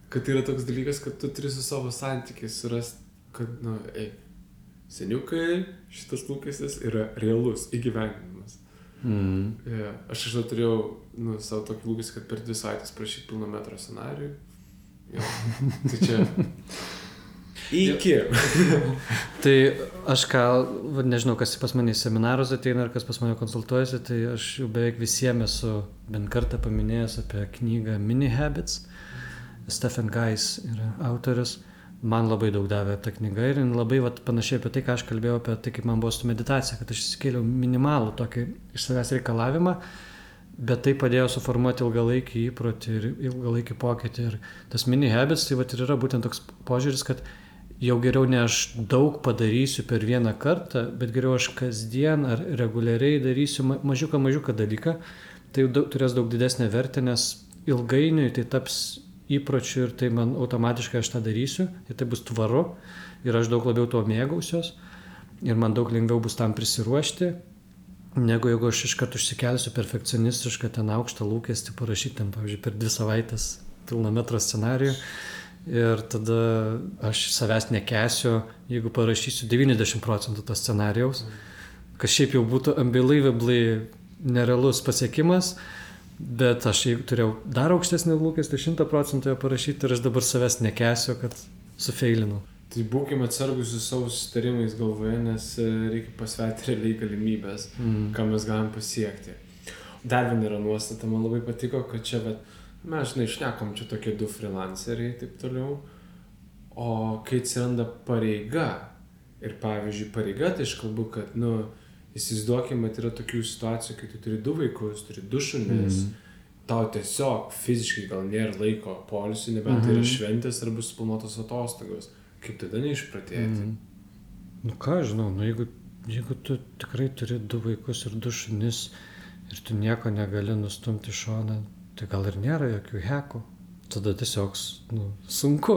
Kad yra toks dalykas, kad tu turi su savo santykiais surasti, kad, seniukai, šitas lūkestis yra realus įgyvendinimas. Yeah. Aš turėjau savo tokį lūkestį, kad per 2 savaitės prašyti pilno metro scenarijų. Tai čia iki. Tai aš nežinau, kas pas mane į seminarus ateina ar kas pas mane konsultuojasi, tai aš jau beveik visiems esu bent kartą paminėjęs apie knygą Mini Habits. Stephen Guys yra autorius. Man labai daug davė ta knyga ir labai panašiai apie tai, ką aš kalbėjau apie tai, kaip man buvo su meditacija, kad aš įsikėliau minimalų tokį iš savęs reikalavimą, bet tai padėjo suformuoti ilgalaikį įprotį ir ilgalaikį pokytį. Ir tas mini habits, tai ir yra būtent toks požiūris, kad jau geriau ne aš daug padarysiu per vieną kartą, bet geriau aš kasdien ar reguliariai darysiu mažiuką dalyką, tai turės daug didesnę vertę, nes ilgainiui tai taps įpročių ir tai man automatiškai aš tą darysiu ir tai bus tvaru ir aš daug labiau tuo mėgausiuos ir man daug lengviau bus tam prisiruošti, negu jeigu aš iškart užsikelsiu perfekcionistišką ten aukštą lūkestį parašyti ten, pavyzdžiui, per 2 savaitės pilno metro scenarijų ir tada aš savęs nekęsiu, jeigu parašysiu 90% to scenarijaus, kas šiaip jau būtų unbelievably nerealus pasiekimas. Bet aš turėjau dar aukštesnį lūkestį 100% parašyti ir aš dabar savęs nekęsiu, kad sufeilinau. Tai būkime atsargus su savo susitarimais galvoje, nes reikia pasverti realiai galimybės, ką mes galim pasiekti. Dar viena yra nuostata, man labai patiko, kad čia, mes šnekom čia tokie 2 freelanceriai taip toliau, o kai atsiranda pareiga, ir pavyzdžiui pareiga, tai aš kalbu, kad, įsivaizduokime, yra tokių situacijų, kai tu turi 2 vaikus, turi 2 šunis, tau tiesiog fiziškai gal nėra laiko poilsiui, nebent tai yra šventės arba suplanuotos atostogos. Kaip tada neišpratėti? Ką žinau, jeigu tu tikrai turi 2 vaikus ir 2 šunis ir tu nieko negali nustumti šoną, tai gal ir nėra jokių hekų. Tada tiesiog sunku.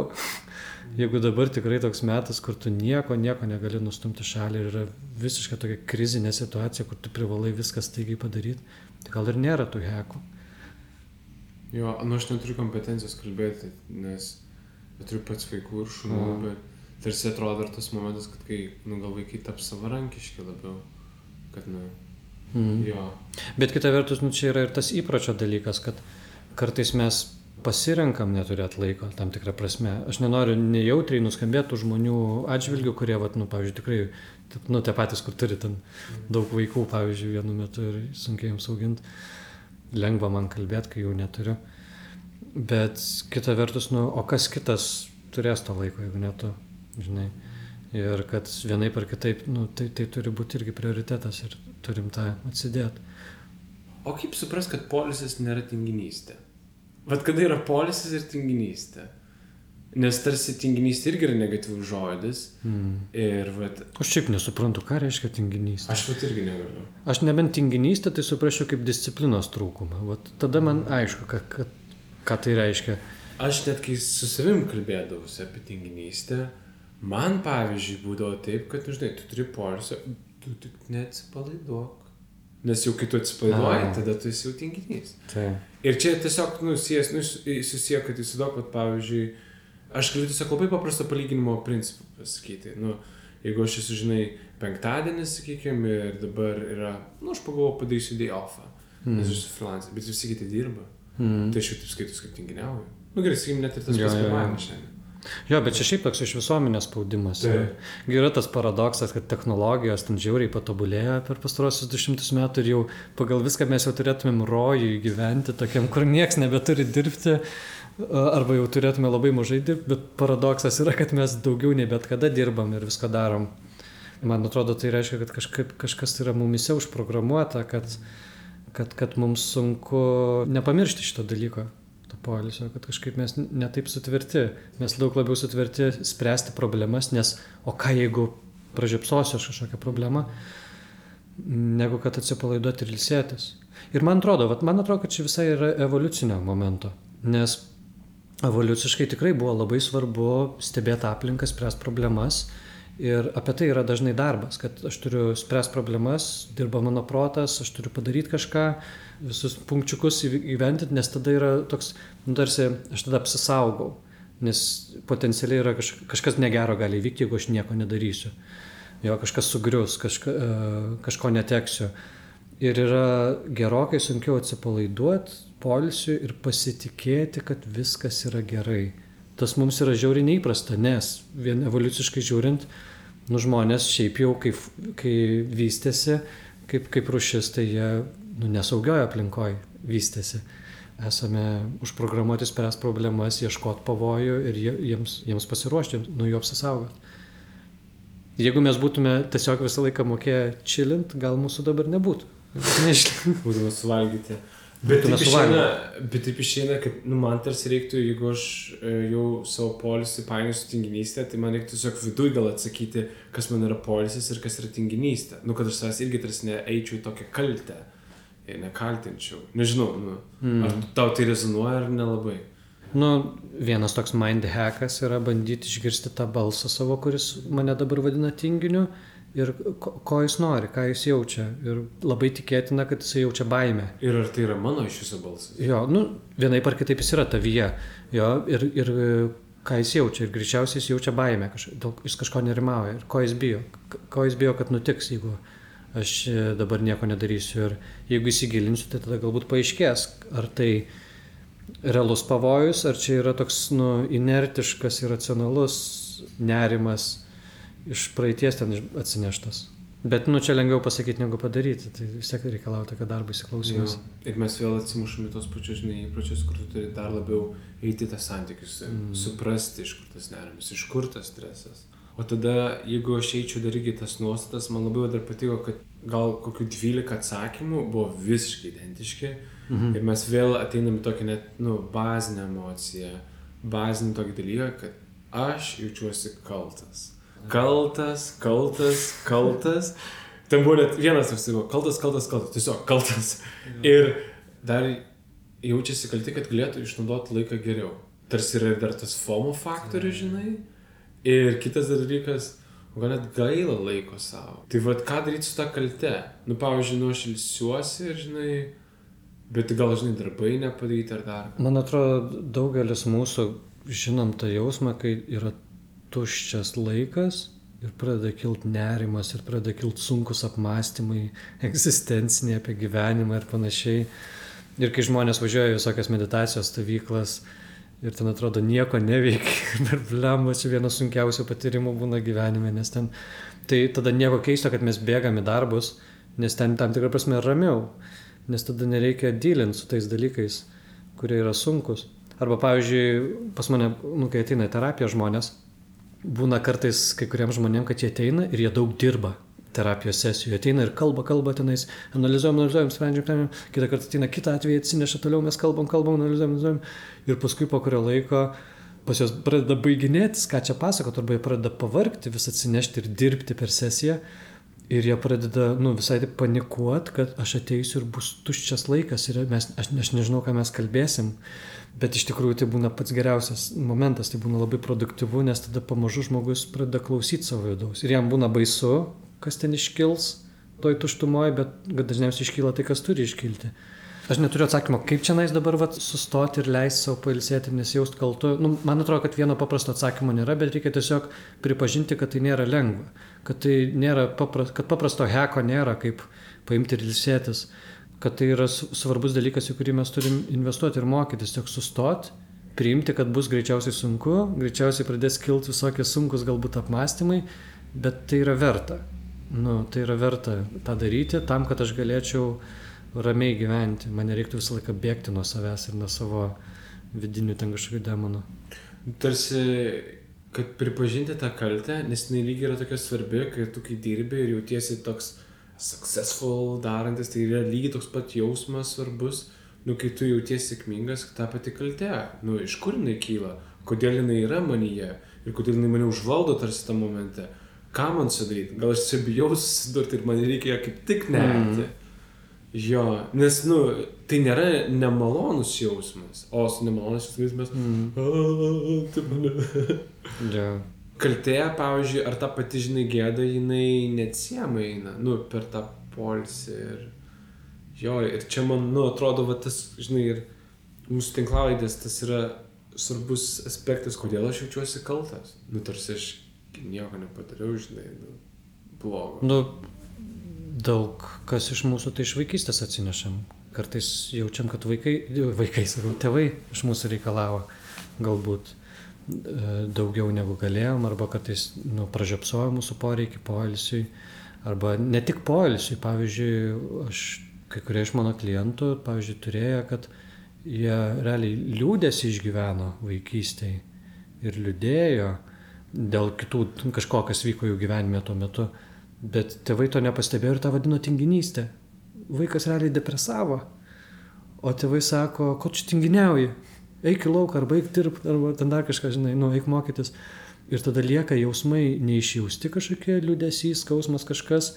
Jeigu dabar tikrai toks metas, kur tu nieko negali nustumti šalį ir yra visiškai tokia krizinė situacija, kur tu privalai viską staigiai padaryti, tai gal ir nėra tų hekų. Jo, aš neturiu kompetencijos kalbėti, nes turiu pats vaikų ir šunų, bet tarsi atrodo dar tas momentas, kad kai gal vaikai taps savarankiški labiau, kad jo. Bet kita vertus, čia yra ir tas įpročio dalykas, kad kartais mes pasirenkam neturėti laiko tam tikrą prasme. Aš nenoriu nejautriai nuskambėti žmonių atžvilgių, kurie, pavyzdžiui, tikrai, tie patys, kur turi ten daug vaikų, pavyzdžiui, vienu metu ir sunkiai jums auginti. Lengva man kalbėti, kai jų neturiu. Bet kita vertus, o kas kitas turės to laiko, jeigu ne tu, žinai. Ir kad vienaip ar kitaip, tai turi būti irgi prioritetas ir turim tą atsidėti. O kaip supras, kad poilsis nėra tinginystė? Kada yra poilsis ir tinginystė? Nes tarsi tinginystė irgi yra negatyvus žodis. Ir Aš šiaip nesuprantu, ką reiškia tinginystė. Aš irgi negaliu. Aš nebent tinginystė, tai suprasčiau kaip disciplinos trūkumą. Tada man aišku, ką tai reiškia. Aš net kai su savim kalbėdavausi apie tinginystę, man pavyzdžiui būdavo taip, kad, tu turi poilsio, tu tik neatsipalaiduok. Nes jau kai tu atsipalaiduoji, tada tu esi jau tinginys. Tai. Ir čia tiesiog, susiję, kad įsivaizduok, kad pavyzdžiui, aš galiu tiesiog labai paprasto palyginimo principą pasakyti. Jeigu aš esu, žinai, penktadienis, sakykime, ir dabar yra, aš pagalvoju, padarysiu day offą, nes aš esu freelancer, bet visi kiti dirba. Tai aš jau taip skaitus, kaip tinginiauju. Gerai, sakykim, net ir tas pats pirmavimas šiandien. Jo, bet čia šiaip toks iš visuomenės spaudimas. Yra tas paradoksas, kad technologijos ten žiauriai patobulėjo per pastarosius 200 metų ir jau pagal viską mes jau turėtumėm rojui gyventi, tokiam, kur nieks nebeturi dirbti, arba jau turėtume labai mažai dirbti, bet paradoksas yra, kad mes daugiau nei bet kada dirbam ir viską darom. Man atrodo, tai reiškia, kad kažkas yra mumise užprogramuota, kad mums sunku nepamiršti šito dalyko. Poilsio, kad kažkaip mes netaip sutverti. Mes daug labiau sutverti spręsti problemas, nes o ką jeigu pražiopsosiu aš kažkokią problemą, negu kad atsipalaiduoti ir ilsėtis. Ir man atrodo, kad čia visai yra evoliucinio momento, nes evoliuciškai tikrai buvo labai svarbu stebėti aplinką, spręsti problemas ir apie tai yra dažnai darbas, kad aš turiu spręsti problemas, dirba mano protas, aš turiu padaryti kažką, visus punkčiukus įventinti, nes tada yra toks, tarsi aš tada apsisaugau, nes potencialiai yra kažkas negero gali įvykti, jeigu aš nieko nedarysiu. Jo, kažkas sugrius, kažko neteksiu. Ir yra gerokai sunkiau atsipalaiduoti, poilsiui ir pasitikėti, kad viskas yra gerai. Tas mums yra žiauriai neįprasta, nes vien evoliuciškai žiūrint, žmonės šiaip jau, kai vystėsi, kaip rūšis, tai jie nesaugioje aplinkoje vystėsi. Esame užprogramuoti spręsti problemas, ieškoti pavojų ir jiems pasiruošti, nuo jų apsisaugoti. Jeigu mes būtume tiesiog visą laiką mokėję chillint, gal mūsų dabar nebūtų. Būtume suvalgyti. Bet taip išeina, kad man tarsi reiktų, jeigu aš jau savo poilsį painiu su tinginystė, tai man reiktų tiesiog viduj gal atsakyti, kas man yra poilsis ir kas yra tinginystė. Kad aš savęs irgi tarsi neeičiau į tokią kaltę ir nekaltinčiau. Nežinau, ar tau tai rezonuoja ar nelabai? Vienas toks mind hackas yra bandyti išgirsti tą balsą savo, kuris mane dabar vadina tinginiu ir ko jis nori, ką jis jaučia. Ir labai tikėtina, kad jis jaučia baimę. Ir ar tai yra mano iš viso balsas? Jo, vienaip ar kitaip jis yra tavyje. Jo, ir ką jis jaučia. Ir greičiausiai jis jaučia baimę, jis kažko nerimauja. Ir ko jis bijo. Ko jis bijo, kad nutiks, jeigu aš dabar nieko nedarysiu. Ir jeigu įsigilinsiu, tai tada galbūt paaiškės, ar tai realus pavojus, ar čia yra toks inertiškas, irracionalus nerimas iš praeities ten atsineštas. Bet čia lengviau pasakyti negu padaryti, tai vis tiek reikalauja tokio darbo įsiklausymas. Ir mes vėl atsimušame tos pačius įpročius, kur tu turi dar labiau eiti tą santykius, suprasti, iš kur tas nerimas, iš kur tas stresas. O tada, jeigu aš eičiau dar irgi tas nuostatas, man labai dar patiko, kad gal kokių 12 atsakymų buvo visiškai identiški. Ir mes vėl ateiname tokį net, bazinę emociją, bazinį tokį dalyką, kad aš jaučiuosi kaltas. Kaltas. Ten buvo net vienas toks, kaltas, tiesiog kaltas. Ir dar jaučiasi kalti, kad galėtų išnaudoti laiką geriau. Tarsi yra dar tas FOMO faktorius, žinai. Ir kitas dalykas, gal net gaila laiko savo. Tai ką daryti su tą kalte? Pavyzdžiui, aš ilsiuosi ir, žinai, bet gal, žinai, darbai nepadaryti ar dar. Man atrodo, daugelis mūsų žinom tą jausmą, kai yra tuščias laikas ir pradeda kilti nerimas ir pradeda kilti sunkus apmąstymai, egzistenciniai apie gyvenimą ir panašiai. Ir kai žmonės važiuoja visokias meditacijos stovyklas ir ten atrodo nieko neveikia, per blemos čia vienas sunkiausių patyrimų būna gyvenime, nes ten, tai tada nieko keisto, kad mes bėgame į darbus, nes ten tam tikrą prasme ramiau, nes tada nereikia dylinti su tais dalykais, kurie yra sunkus. Arba, pavyzdžiui, pas mane, kai ateina į terapiją žmonės, būna kartais kai kuriems žmonėms, kad jie ateina ir jie daug dirba terapijos sesijų. Jie ateina ir kalba tenais, analizuojam, sprendžiam, kitą kartą ateina kitą atvejį, atsineša toliau, mes kalbam, analizuojam. Ir paskui po kurio laiko pas jos pradeda baiginėtis, ką čia pasakot, arba jie pradeda pavargti, vis atsinešti ir dirbti per sesiją. Ir jie pradeda visai taip panikuoti, kad aš ateisiu ir bus tuščias laikas ir aš nežinau, ką mes kalbėsim. Bet iš tikrųjų tai būna pats geriausias momentas, tai būna labai produktyvu, nes tada pamažu žmogus pradeda klausyti savo vidaus. Ir jam būna baisu, kas ten iškils, toj tuštumoje, bet dažniausiai iškyla tai, kas turi iškilti. Aš neturiu atsakymo, kaip čia nais dabar sustoti ir leisti savo pailsėti ir nesijaust kaltu. Man atrodo, kad vieno paprasto atsakymo nėra, bet reikia tiesiog pripažinti, kad tai nėra lengva. Kad tai nėra kad paprasto heko nėra, kaip paimti ir ilsėtis. Kad tai yra svarbus dalykas, į kurį mes turim investuoti ir mokytis. Tiesiog sustoti, priimti, kad bus greičiausiai sunku, greičiausiai pradės kilti visokie sunkus galbūt apmąstymai, bet tai yra verta. Tai yra verta tą daryti tam, kad aš galėčiau ramiai gyventi. Man nereiktų visą laiką bėgti nuo savęs ir nuo savo vidinių ten kažkokių demonų. Tarsi, kad pripažinti tą kaltę, nes jinai lygiai yra tokia svarbi, kai dirbi ir jautiesi toks successful darantis, tai yra lygiai toks pat jausmas svarbus, kai tu jautiesi sėkmingas, ta pati kaltė. Iš kur jinai kyla, kodėl jinai yra manyje ir kodėl jinai mane užvaldo tarsi tą momente. Ką man sudaryti? Gal aš čia bijau susidurti ir man reikia kaip tik nerti. Jo, nes, tai nėra nemalonus jausmas, o su nemalonus jausmas kaltė, pavyzdžiui, ar ta pati, gėda, jinai neatsiejama eina, per tą poilsį ir čia man, atrodo, tas, ir mūsų tinklalaidės, tas yra svarbus aspektas, kodėl aš jaučiuosi kaltas, tarsi aš nieko nepadariau, blogo. Daug kas iš mūsų tai iš vaikystės atsinešam. Kartais jaučiam, kad tėvai iš mūsų reikalavo galbūt daugiau negu galėjom, arba kartais pražiopsojo mūsų poreikį poilsiui, arba ne tik poilsiui. Pavyzdžiui, kai kurie iš mano klientų, pavyzdžiui, turėjo, kad jie realiai liūdėsi išgyveno vaikystėje ir liūdėjo dėl kitų kažko, kas vyko jų gyvenime tuo metu. Bet tėvai to nepastebėjo ir tą vadino tinginystė. Vaikas realiai depresavo, o tėvai sako, ko čia tinginiauji? Eik į lauką, arba eik dirbti, arba ten dar kažką, eik mokytis. Ir tada lieka jausmai neišjausti kažkokie, liūdesys, skausmas kažkas.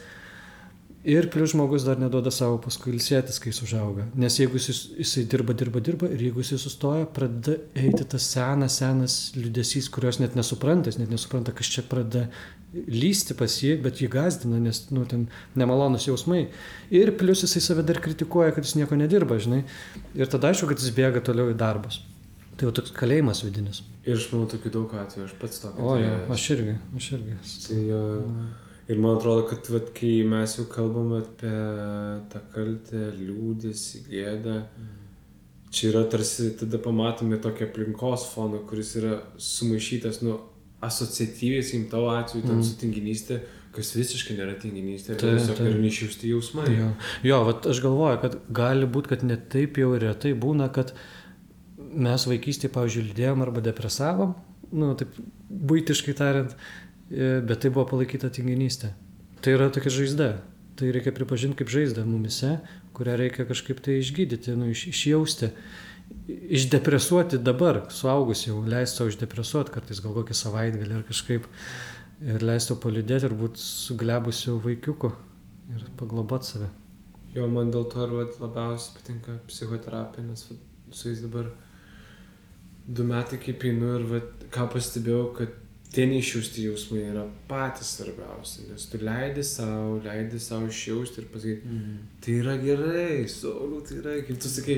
Ir plius žmogus dar neduoda savo paskui ilsėtis, kai jis užauga. Nes jeigu jisai dirba ir jeigu jisai sustoja, pradeda eiti tas senas liūdesys, kurios net nesupranta, kas čia pradeda lysti pas jį, bet jį gazdina, nes ten nemalonus jausmai. Ir plius jisai save dar kritikuoja, kad jis nieko nedirba, Ir tada aišku, kad jis bėga toliau į darbus. Tai jau toks kalėjimas vidinis. Ir aš manau tokių daug atvejų, aš pats tokį. Aš irgi. Tai, ir man atrodo, kad kai mes jau kalbam apie tą kaltę, liūdesį, gėdą, čia yra tarsi, tada pamatome tokį aplinkos foną, kuris yra sumaišytas, asociatyviai, sakykim, tavo atveju, ten su tinginystė, kas visiškai nėra tinginystė, tiesiog yra neišjausti jausmai. Jo, aš galvoju, kad gali būti, kad net taip jau retai būna, kad mes vaikystėje, pavyzdžiui, liūdėjom arba depresavom, taip buitiškai tariant, bet tai buvo palaikyta tinginystė. Tai yra tokia žaizda. Tai reikia pripažinti kaip žaizdą mumise, kurią reikia kažkaip tai išgydyti, išjausti, išdepresuoti dabar, suaugus jau, leisti savo išdepresuoti, kartais gal kokį savaitgalį ar kažkaip, ir leisti paliūdėti ir būti suglebusiu vaikiuku ir pagloboti save. Jo, man dėl to labiausiai patinka psichoterapija, nes su jais dabar 2 metai kaip einu ir ką pastebėjau, kad tie neišjausti jausmai yra patys svarbiausi, nes tu leidi savo išjausti ir pasakyti, tai yra gerai, Sauliau, tai yra, kaip tu sakai,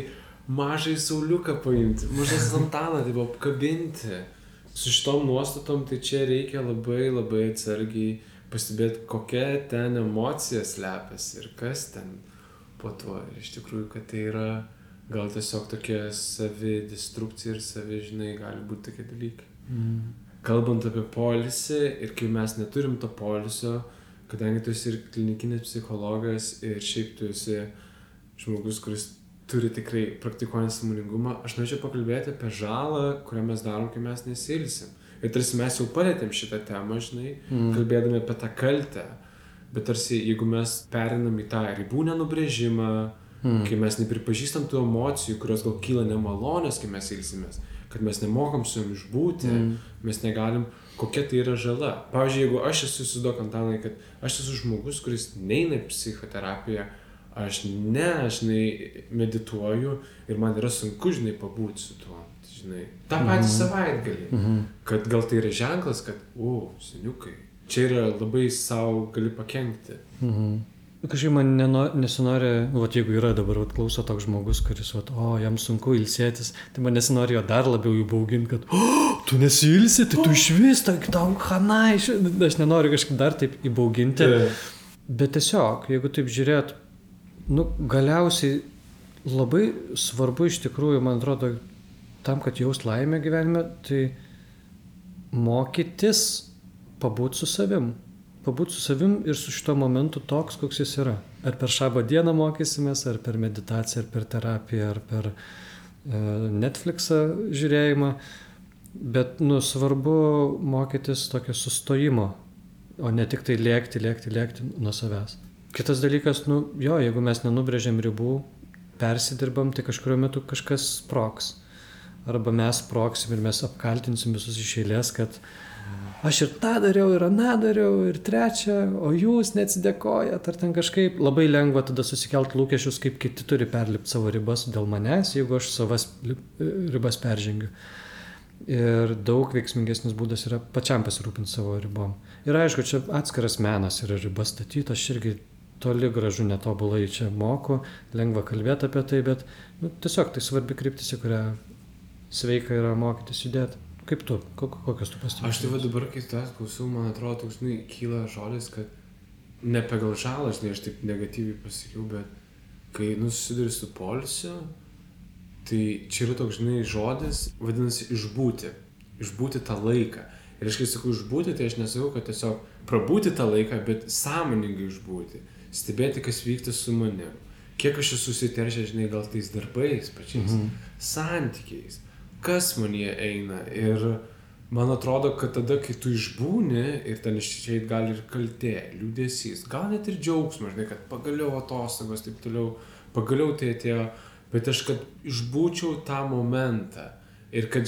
mažai Sauliuką paimti, mažą Santaną, tai buvo apkabinti. Su šitom nuostatom, tai čia reikia labai labai atsargiai pastebėti, kokia ten emocija slepiasi ir kas ten po to. Ir iš tikrųjų, kad tai yra gal tiesiog tokia savidestrukcija ir gali būti tokie dalykai. Kalbant apie poilsį ir kai mes neturim to poilsio, kadangi tu esi ir klinikinis psichologas ir šiaip tu esi žmogus, kuris turi tikrai praktikuojant sąmoningumą, aš norėčiau pakalbėti apie žalą, kurią mes darom, kai mes nesiilsim. Ir tarsi mes jau palėtėm šitą temą, kalbėdami apie tą kaltę, bet tarsi jeigu mes perinam į tą ribų nenubrėžimą, kai mes nepripažįstam tų emocijų, kurios gal kyla nemalonės, kai mes ilsimės, kad mes nemokam su jom išbūti, mes negalim, kokia tai yra žala. Pavyzdžiui, jeigu aš esu, įsivaizduok, Antanai, kad aš esu žmogus, kuris neina į psichoterapiją, aš medituoju ir man yra sunku, pabūti su tuo, tą patį savaitgalį. Kad gal tai yra ženklas, kad, seniukai, čia yra labai savo gali pakenkti. kažkaip man nesinori, jeigu yra dabar klauso toks žmogus, kuris, jam sunku ilsėtis, tai man nesinori jo dar labiau įbauginti, kad tu nesiilsi, tai tu išvis, tau hanai, aš nenoriu kažkaip dar taip įbauginti. Bet tiesiog, jeigu taip žiūrėt, galiausiai labai svarbu iš tikrųjų, man atrodo, tam, kad jaust laimę gyvenime, tai mokytis pabūti su savim. Pabūti su savim ir su šito momentu toks, koks jis yra. Ar per šabo dieną mokysimės, ar per meditaciją, ar per terapiją, ar per Netflixą žiūrėjimą. Bet, svarbu mokytis tokio sustojimo, o ne tik tai lėkti nuo savęs. Kitas dalykas, jeigu mes nenubrėžiam ribų, persidirbam, tai kažkurio metu kažkas sprogs. Arba mes sprogsim ir mes apkaltinsim visus iš eilės, kad aš ir tą dariau, ir aną dariau, ir trečią, o jūs neatsidėkojat, ar ten kažkaip. Labai lengva tada susikelt lūkesčius, kaip kiti turi perlipti savo ribas dėl manęs, jeigu aš savas ribas peržengiu. Ir daug veiksmingesnis būdas yra pačiam pasirūpinti savo ribom. Ir aišku, čia atskiras menas yra ribas statyti, aš irgi toli gražu netobulai čia moku, lengva kalbėti apie tai, bet tiesiog tai svarbi kryptis, į kurią sveika yra mokytis judėti. Kaip tu? Kokios tu pastebėjai? Aš tai dabar, kai tu klausiau, man atrodo, toks, kyla žodis, kad ne pagal žalą, aš taip negatyviai pasakiau, bet kai susiduri su poilsiu, tai čia yra toks, žodis, vadinasi, išbūti tą laiką. Ir aš kai sakau išbūti, tai aš nesakau, kad tiesiog prabūti tą laiką, bet sąmoningai išbūti, stebėti, kas vyksta su manim. Kiek aš esu susiteršęs, gal tais darbais pačiais, santykiais, kas manyje eina. Ir man atrodo, kad tada, kai tu išbūni ir ten išeit gali ir kaltė, liūdesys, gal net ir džiaugsmas, kad pagaliau atostogos, taip toliau, pagaliau tai atėjo, bet aš kad išbūčiau tą momentą ir kad,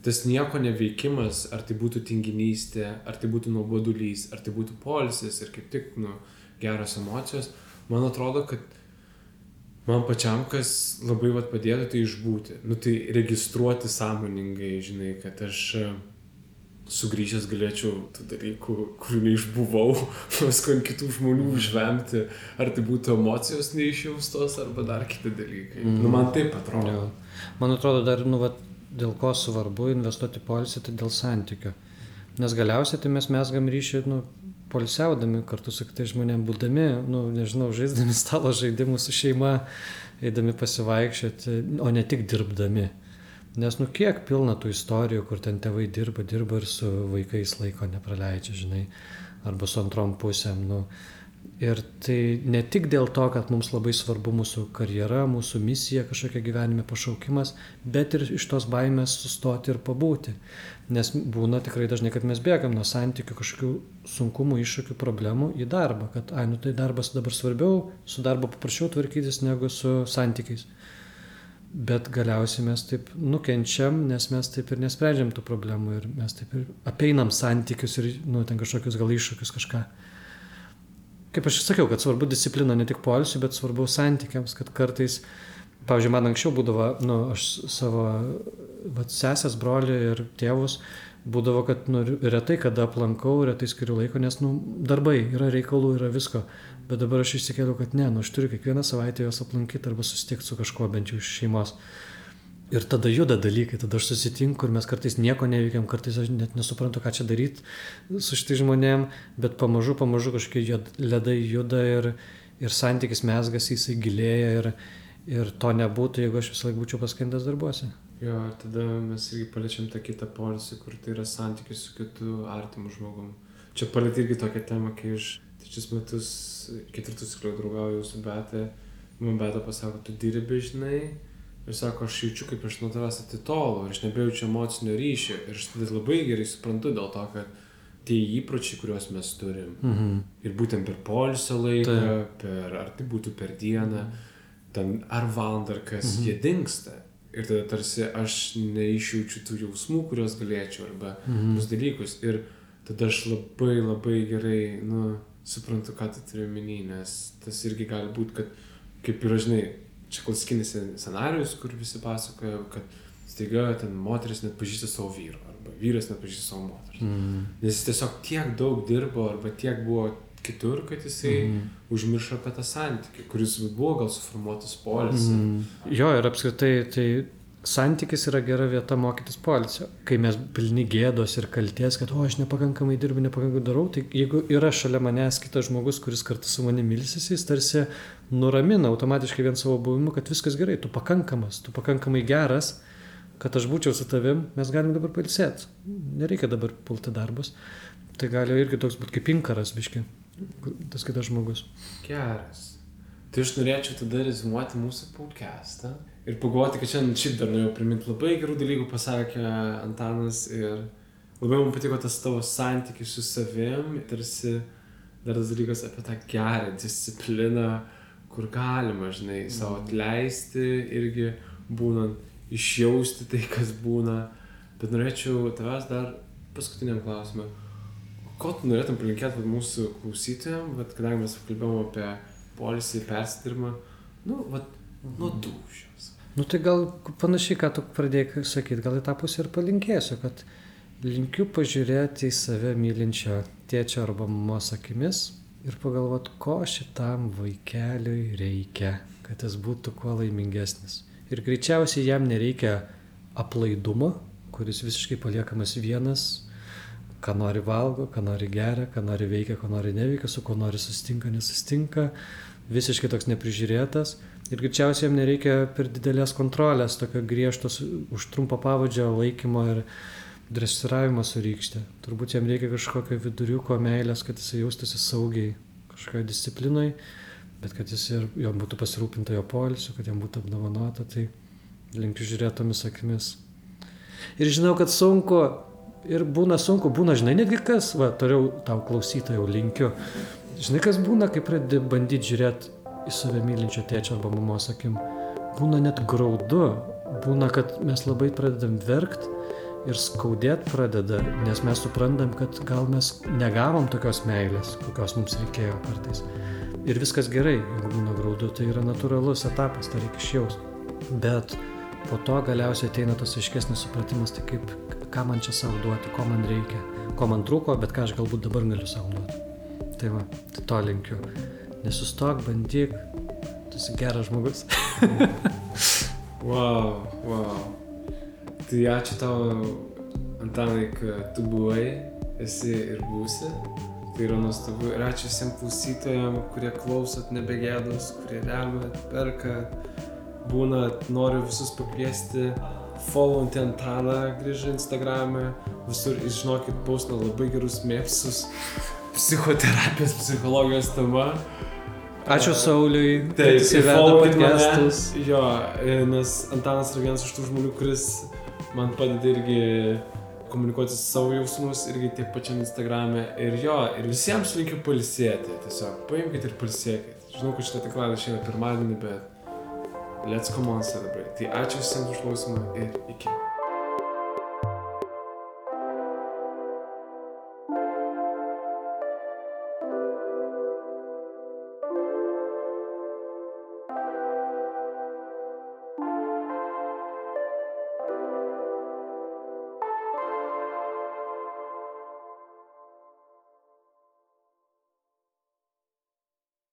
tas nieko neveikimas, ar tai būtų tinginystė, ar tai būtų nuobodulys, ar tai būtų poilsis ir kaip tik, geros emocijos, man atrodo, kad man pačiam, kas labai padėtų, tai išbūti. Tai registruoti sąmoningai, kad aš sugrįžęs galėčiau tų dalykų, kurių neišbuvau, paskui ant kitų žmonių užvemti, ar tai būtų emocijos neišjaustos, arba dar kiti dalykai. Man taip atrodo. Man atrodo dar, dėl ko svarbu investuoti poilsį, tai dėl santykio. Nes galiausiai tai mes mesgam ryšį, poilsiaudami kartu su kitais žmonėm, būdami, žaisdami stalo žaidimus su šeima, eidami pasivaikščioti, o ne tik dirbdami. Nes kiek pilna tų istorijų, kur ten tėvai dirba ir su vaikais laiko nepraleidžia, arba su antrom pusėm. Ir tai ne tik dėl to, kad mums labai svarbu mūsų karjera, mūsų misija, kažkokia gyvenime pašaukimas, bet ir iš tos baimės sustoti ir pabūti. Nes būna tikrai dažnai, kad mes bėgam nuo santykių, kažkokių sunkumų, iššūkių, problemų į darbą. Kad, tai darbas dabar svarbiau, su darbo paprasčiau tvarkytis negu su santykiais. Bet galiausiai mes taip nukenčiam, nes mes taip ir nesprendžiam tų problemų ir mes taip ir apeinam santykius ir ten kažkokius gal iššūkius kažką. Kaip aš sakiau, kad svarbu disciplina ne tik poilsiui, bet svarbu santykiams, kad kartais, pavyzdžiui, man anksčiau būdavo, aš savo sesės, brolį ir tėvus, būdavo, kad retai kada aplankau, retai skiriu laiko, nes darbai, yra reikalų, yra visko. Bet dabar aš išsikėliau, kad ne, aš turiu kiekvieną savaitę juos aplankyti arba susitikti su kažkuo, bent jau iš šeimos. Ir tada juda dalykai, tada aš susitinku ir mes kartais nieko neveikiam, kartais aš net nesuprantu, ką čia daryti su šitai žmonėm, bet pamažu kažkokie ledai juda ir santykis mezgasi, jisai gilėja ir to nebūtų, jeigu aš visą laiką būčiau paskendęs darbuose. Jo, ir tada mes irgi paliečiam tą kitą poilsį, kur tai yra santykis su kitu artimu žmogum. Čia palietė irgi tokią temą, kai aš 3 metus, 4 cikliau draugauju su Beta, man Beta pasako, tu dirbi, ir sako, aš jaučiu, kaip aš nuo tavęs atitolu ir aš nebejaučiu emocinio ryšio. Ir aš tada labai gerai suprantu dėl to, kad tie įpročiai, kuriuos mes turim, ir būtent per poilsio laiką, ar tai būtų per dieną, ten ar valandą, ar kas, jie dingsta. Ir tada tarsi aš neišjaučiu tų jausmų, kuriuos galėčiau, arba tus dalykus. Ir tada aš labai gerai, suprantu, ką tu turi omeny, nes tas irgi gali būti, kad kaip yra, čia klasikinis scenarijus, kur visi pasakoja, kad staiga ten moteris net pažįsta savo vyrą, arba vyras net pažįsta savo moteris. Nes jis tiesiog tiek daug dirbo, arba tiek buvo kitur, kad jisai užmiršo apie tą santykį, kuris buvo gal suformuotas poilsį. Jo, ir apskritai, tai santykis yra gera vieta mokytis poilsio. Kai mes pilni gėdos ir kalties, kad aš nepakankamai dirbu, nepakankamai darau, tai jeigu yra šalia manęs kitas žmogus, kuris kartu su manimi ilsisi, jis tarsi nuramina automatiškai vien savo buvimu, kad viskas gerai, tu pakankamas, tu pakankamai geras, kad aš būčiau su tavim, mes galim dabar pailsėti. Nereikia dabar pulti darbus. Tai gali irgi toks būti kaip inkaras, biški, tas kitas žmogus. Geras. Tai aš norėčiau tada rezimuoti mūsų podcastą ir pagalvoti, kad šiandien šiaip dar norėjau priminti labai gerų dalykų, pasakė Antanas, ir labai man patiko tas tavo santykis su savim, tarsi dar tas dalykas apie tą gerą discipliną, kur galima, žinai, savo atleisti irgi būnant, išjausti tai, kas būna. Bet norėčiau tavęs dar paskutiniam klausimą. Ko tu norėtum palinkėti mūsų klausytojams, kadangi mes kalbėjome apie poilsį, persidirbimą, nuo dūšios. Tai gal panašiai, ką tu pradėjai sakyti, gal į tą pusę ir palinkėsiu, kad linkiu pažiūrėti į save mylinčio tėčio arba mamos akimis ir pagalvoti, ko šitam vaikeliui reikia, kad jis būtų kuo laimingesnis. Ir greičiausiai jam nereikia aplaidumo, kuris visiškai paliekamas vienas, ką nori valgo, ką nori geria, ką nori veikia, ko nori neveikia, su kuo nori susitinka, nesusitinka, visiškai toks neprižiūrėtas. Ir greičiausiai jam nereikia per didelės kontrolės, tokio griežtos už trumpo pavadžio laikymo ir dresiravimo su rykšte. Turbūt jam reikia kažkokio viduriuko meilės, kad jis jaustųsi saugiai kažkokio disciplinoj, bet kad jis ir jo būtų pasirūpinta jo poilsiu, kad jam būtų apdovanota, tai linkiu žiūrėti tomis akimis. Ir žinau, kad sunku, ir būna sunku, žinai, netgi kas, toliau tau klausytojau linkiu, žinai, kas būna, kai pradedi bandyti žiūrėti į save mylinčio tėčio arba mamos akim. Būna net graudu, būna, kad mes labai pradedam verkt ir skaudėt pradeda, nes mes suprantam, kad gal mes negavom tokios meilės, kokios mums reikėjo kartais. Ir viskas gerai, jeigu būna graudu, tai yra natūralus etapas, tai reikia išjausti. Bet po to galiausiai ateina tas aiškesnis supratimas, tai kaip, ką man čia savo duoti, ko man reikia, ko man trūko, bet ką aš galbūt dabar galiu savo duoti. Tai to linkiu. Nesustok, bandyk, tu esi geras žmogus. Wow. Tai ačiū tau, Antanai, kad tu buvai, esi ir būsi. Tai yra nuostabu. Ir ačiū visiems klausytojams, kurie klausot nebegėdos, kurie remia, perka, noriu visus pakviesti, followinti Antaną grįžę Instagram'e, visur, žinokit, paustina labai gerus mėpsus, psichoterapijos, psichologijos tema. Ačiū Sauliui, kad jis įveda podcastus. Jo, nes Antanas yra vienas iš tų žmonių, kuris man padeda irgi komunikuoti savo jausmus irgi tiek pačiam Instagram'e. Ir visiems linkiu pailsėti. Tiesiog paimkite ir pailsėkite. Žinau, kad šitą tinklalaidė išeina pirmadienį, bet let's come on celebrate. Tai ačiū visiems už klausimą ir iki.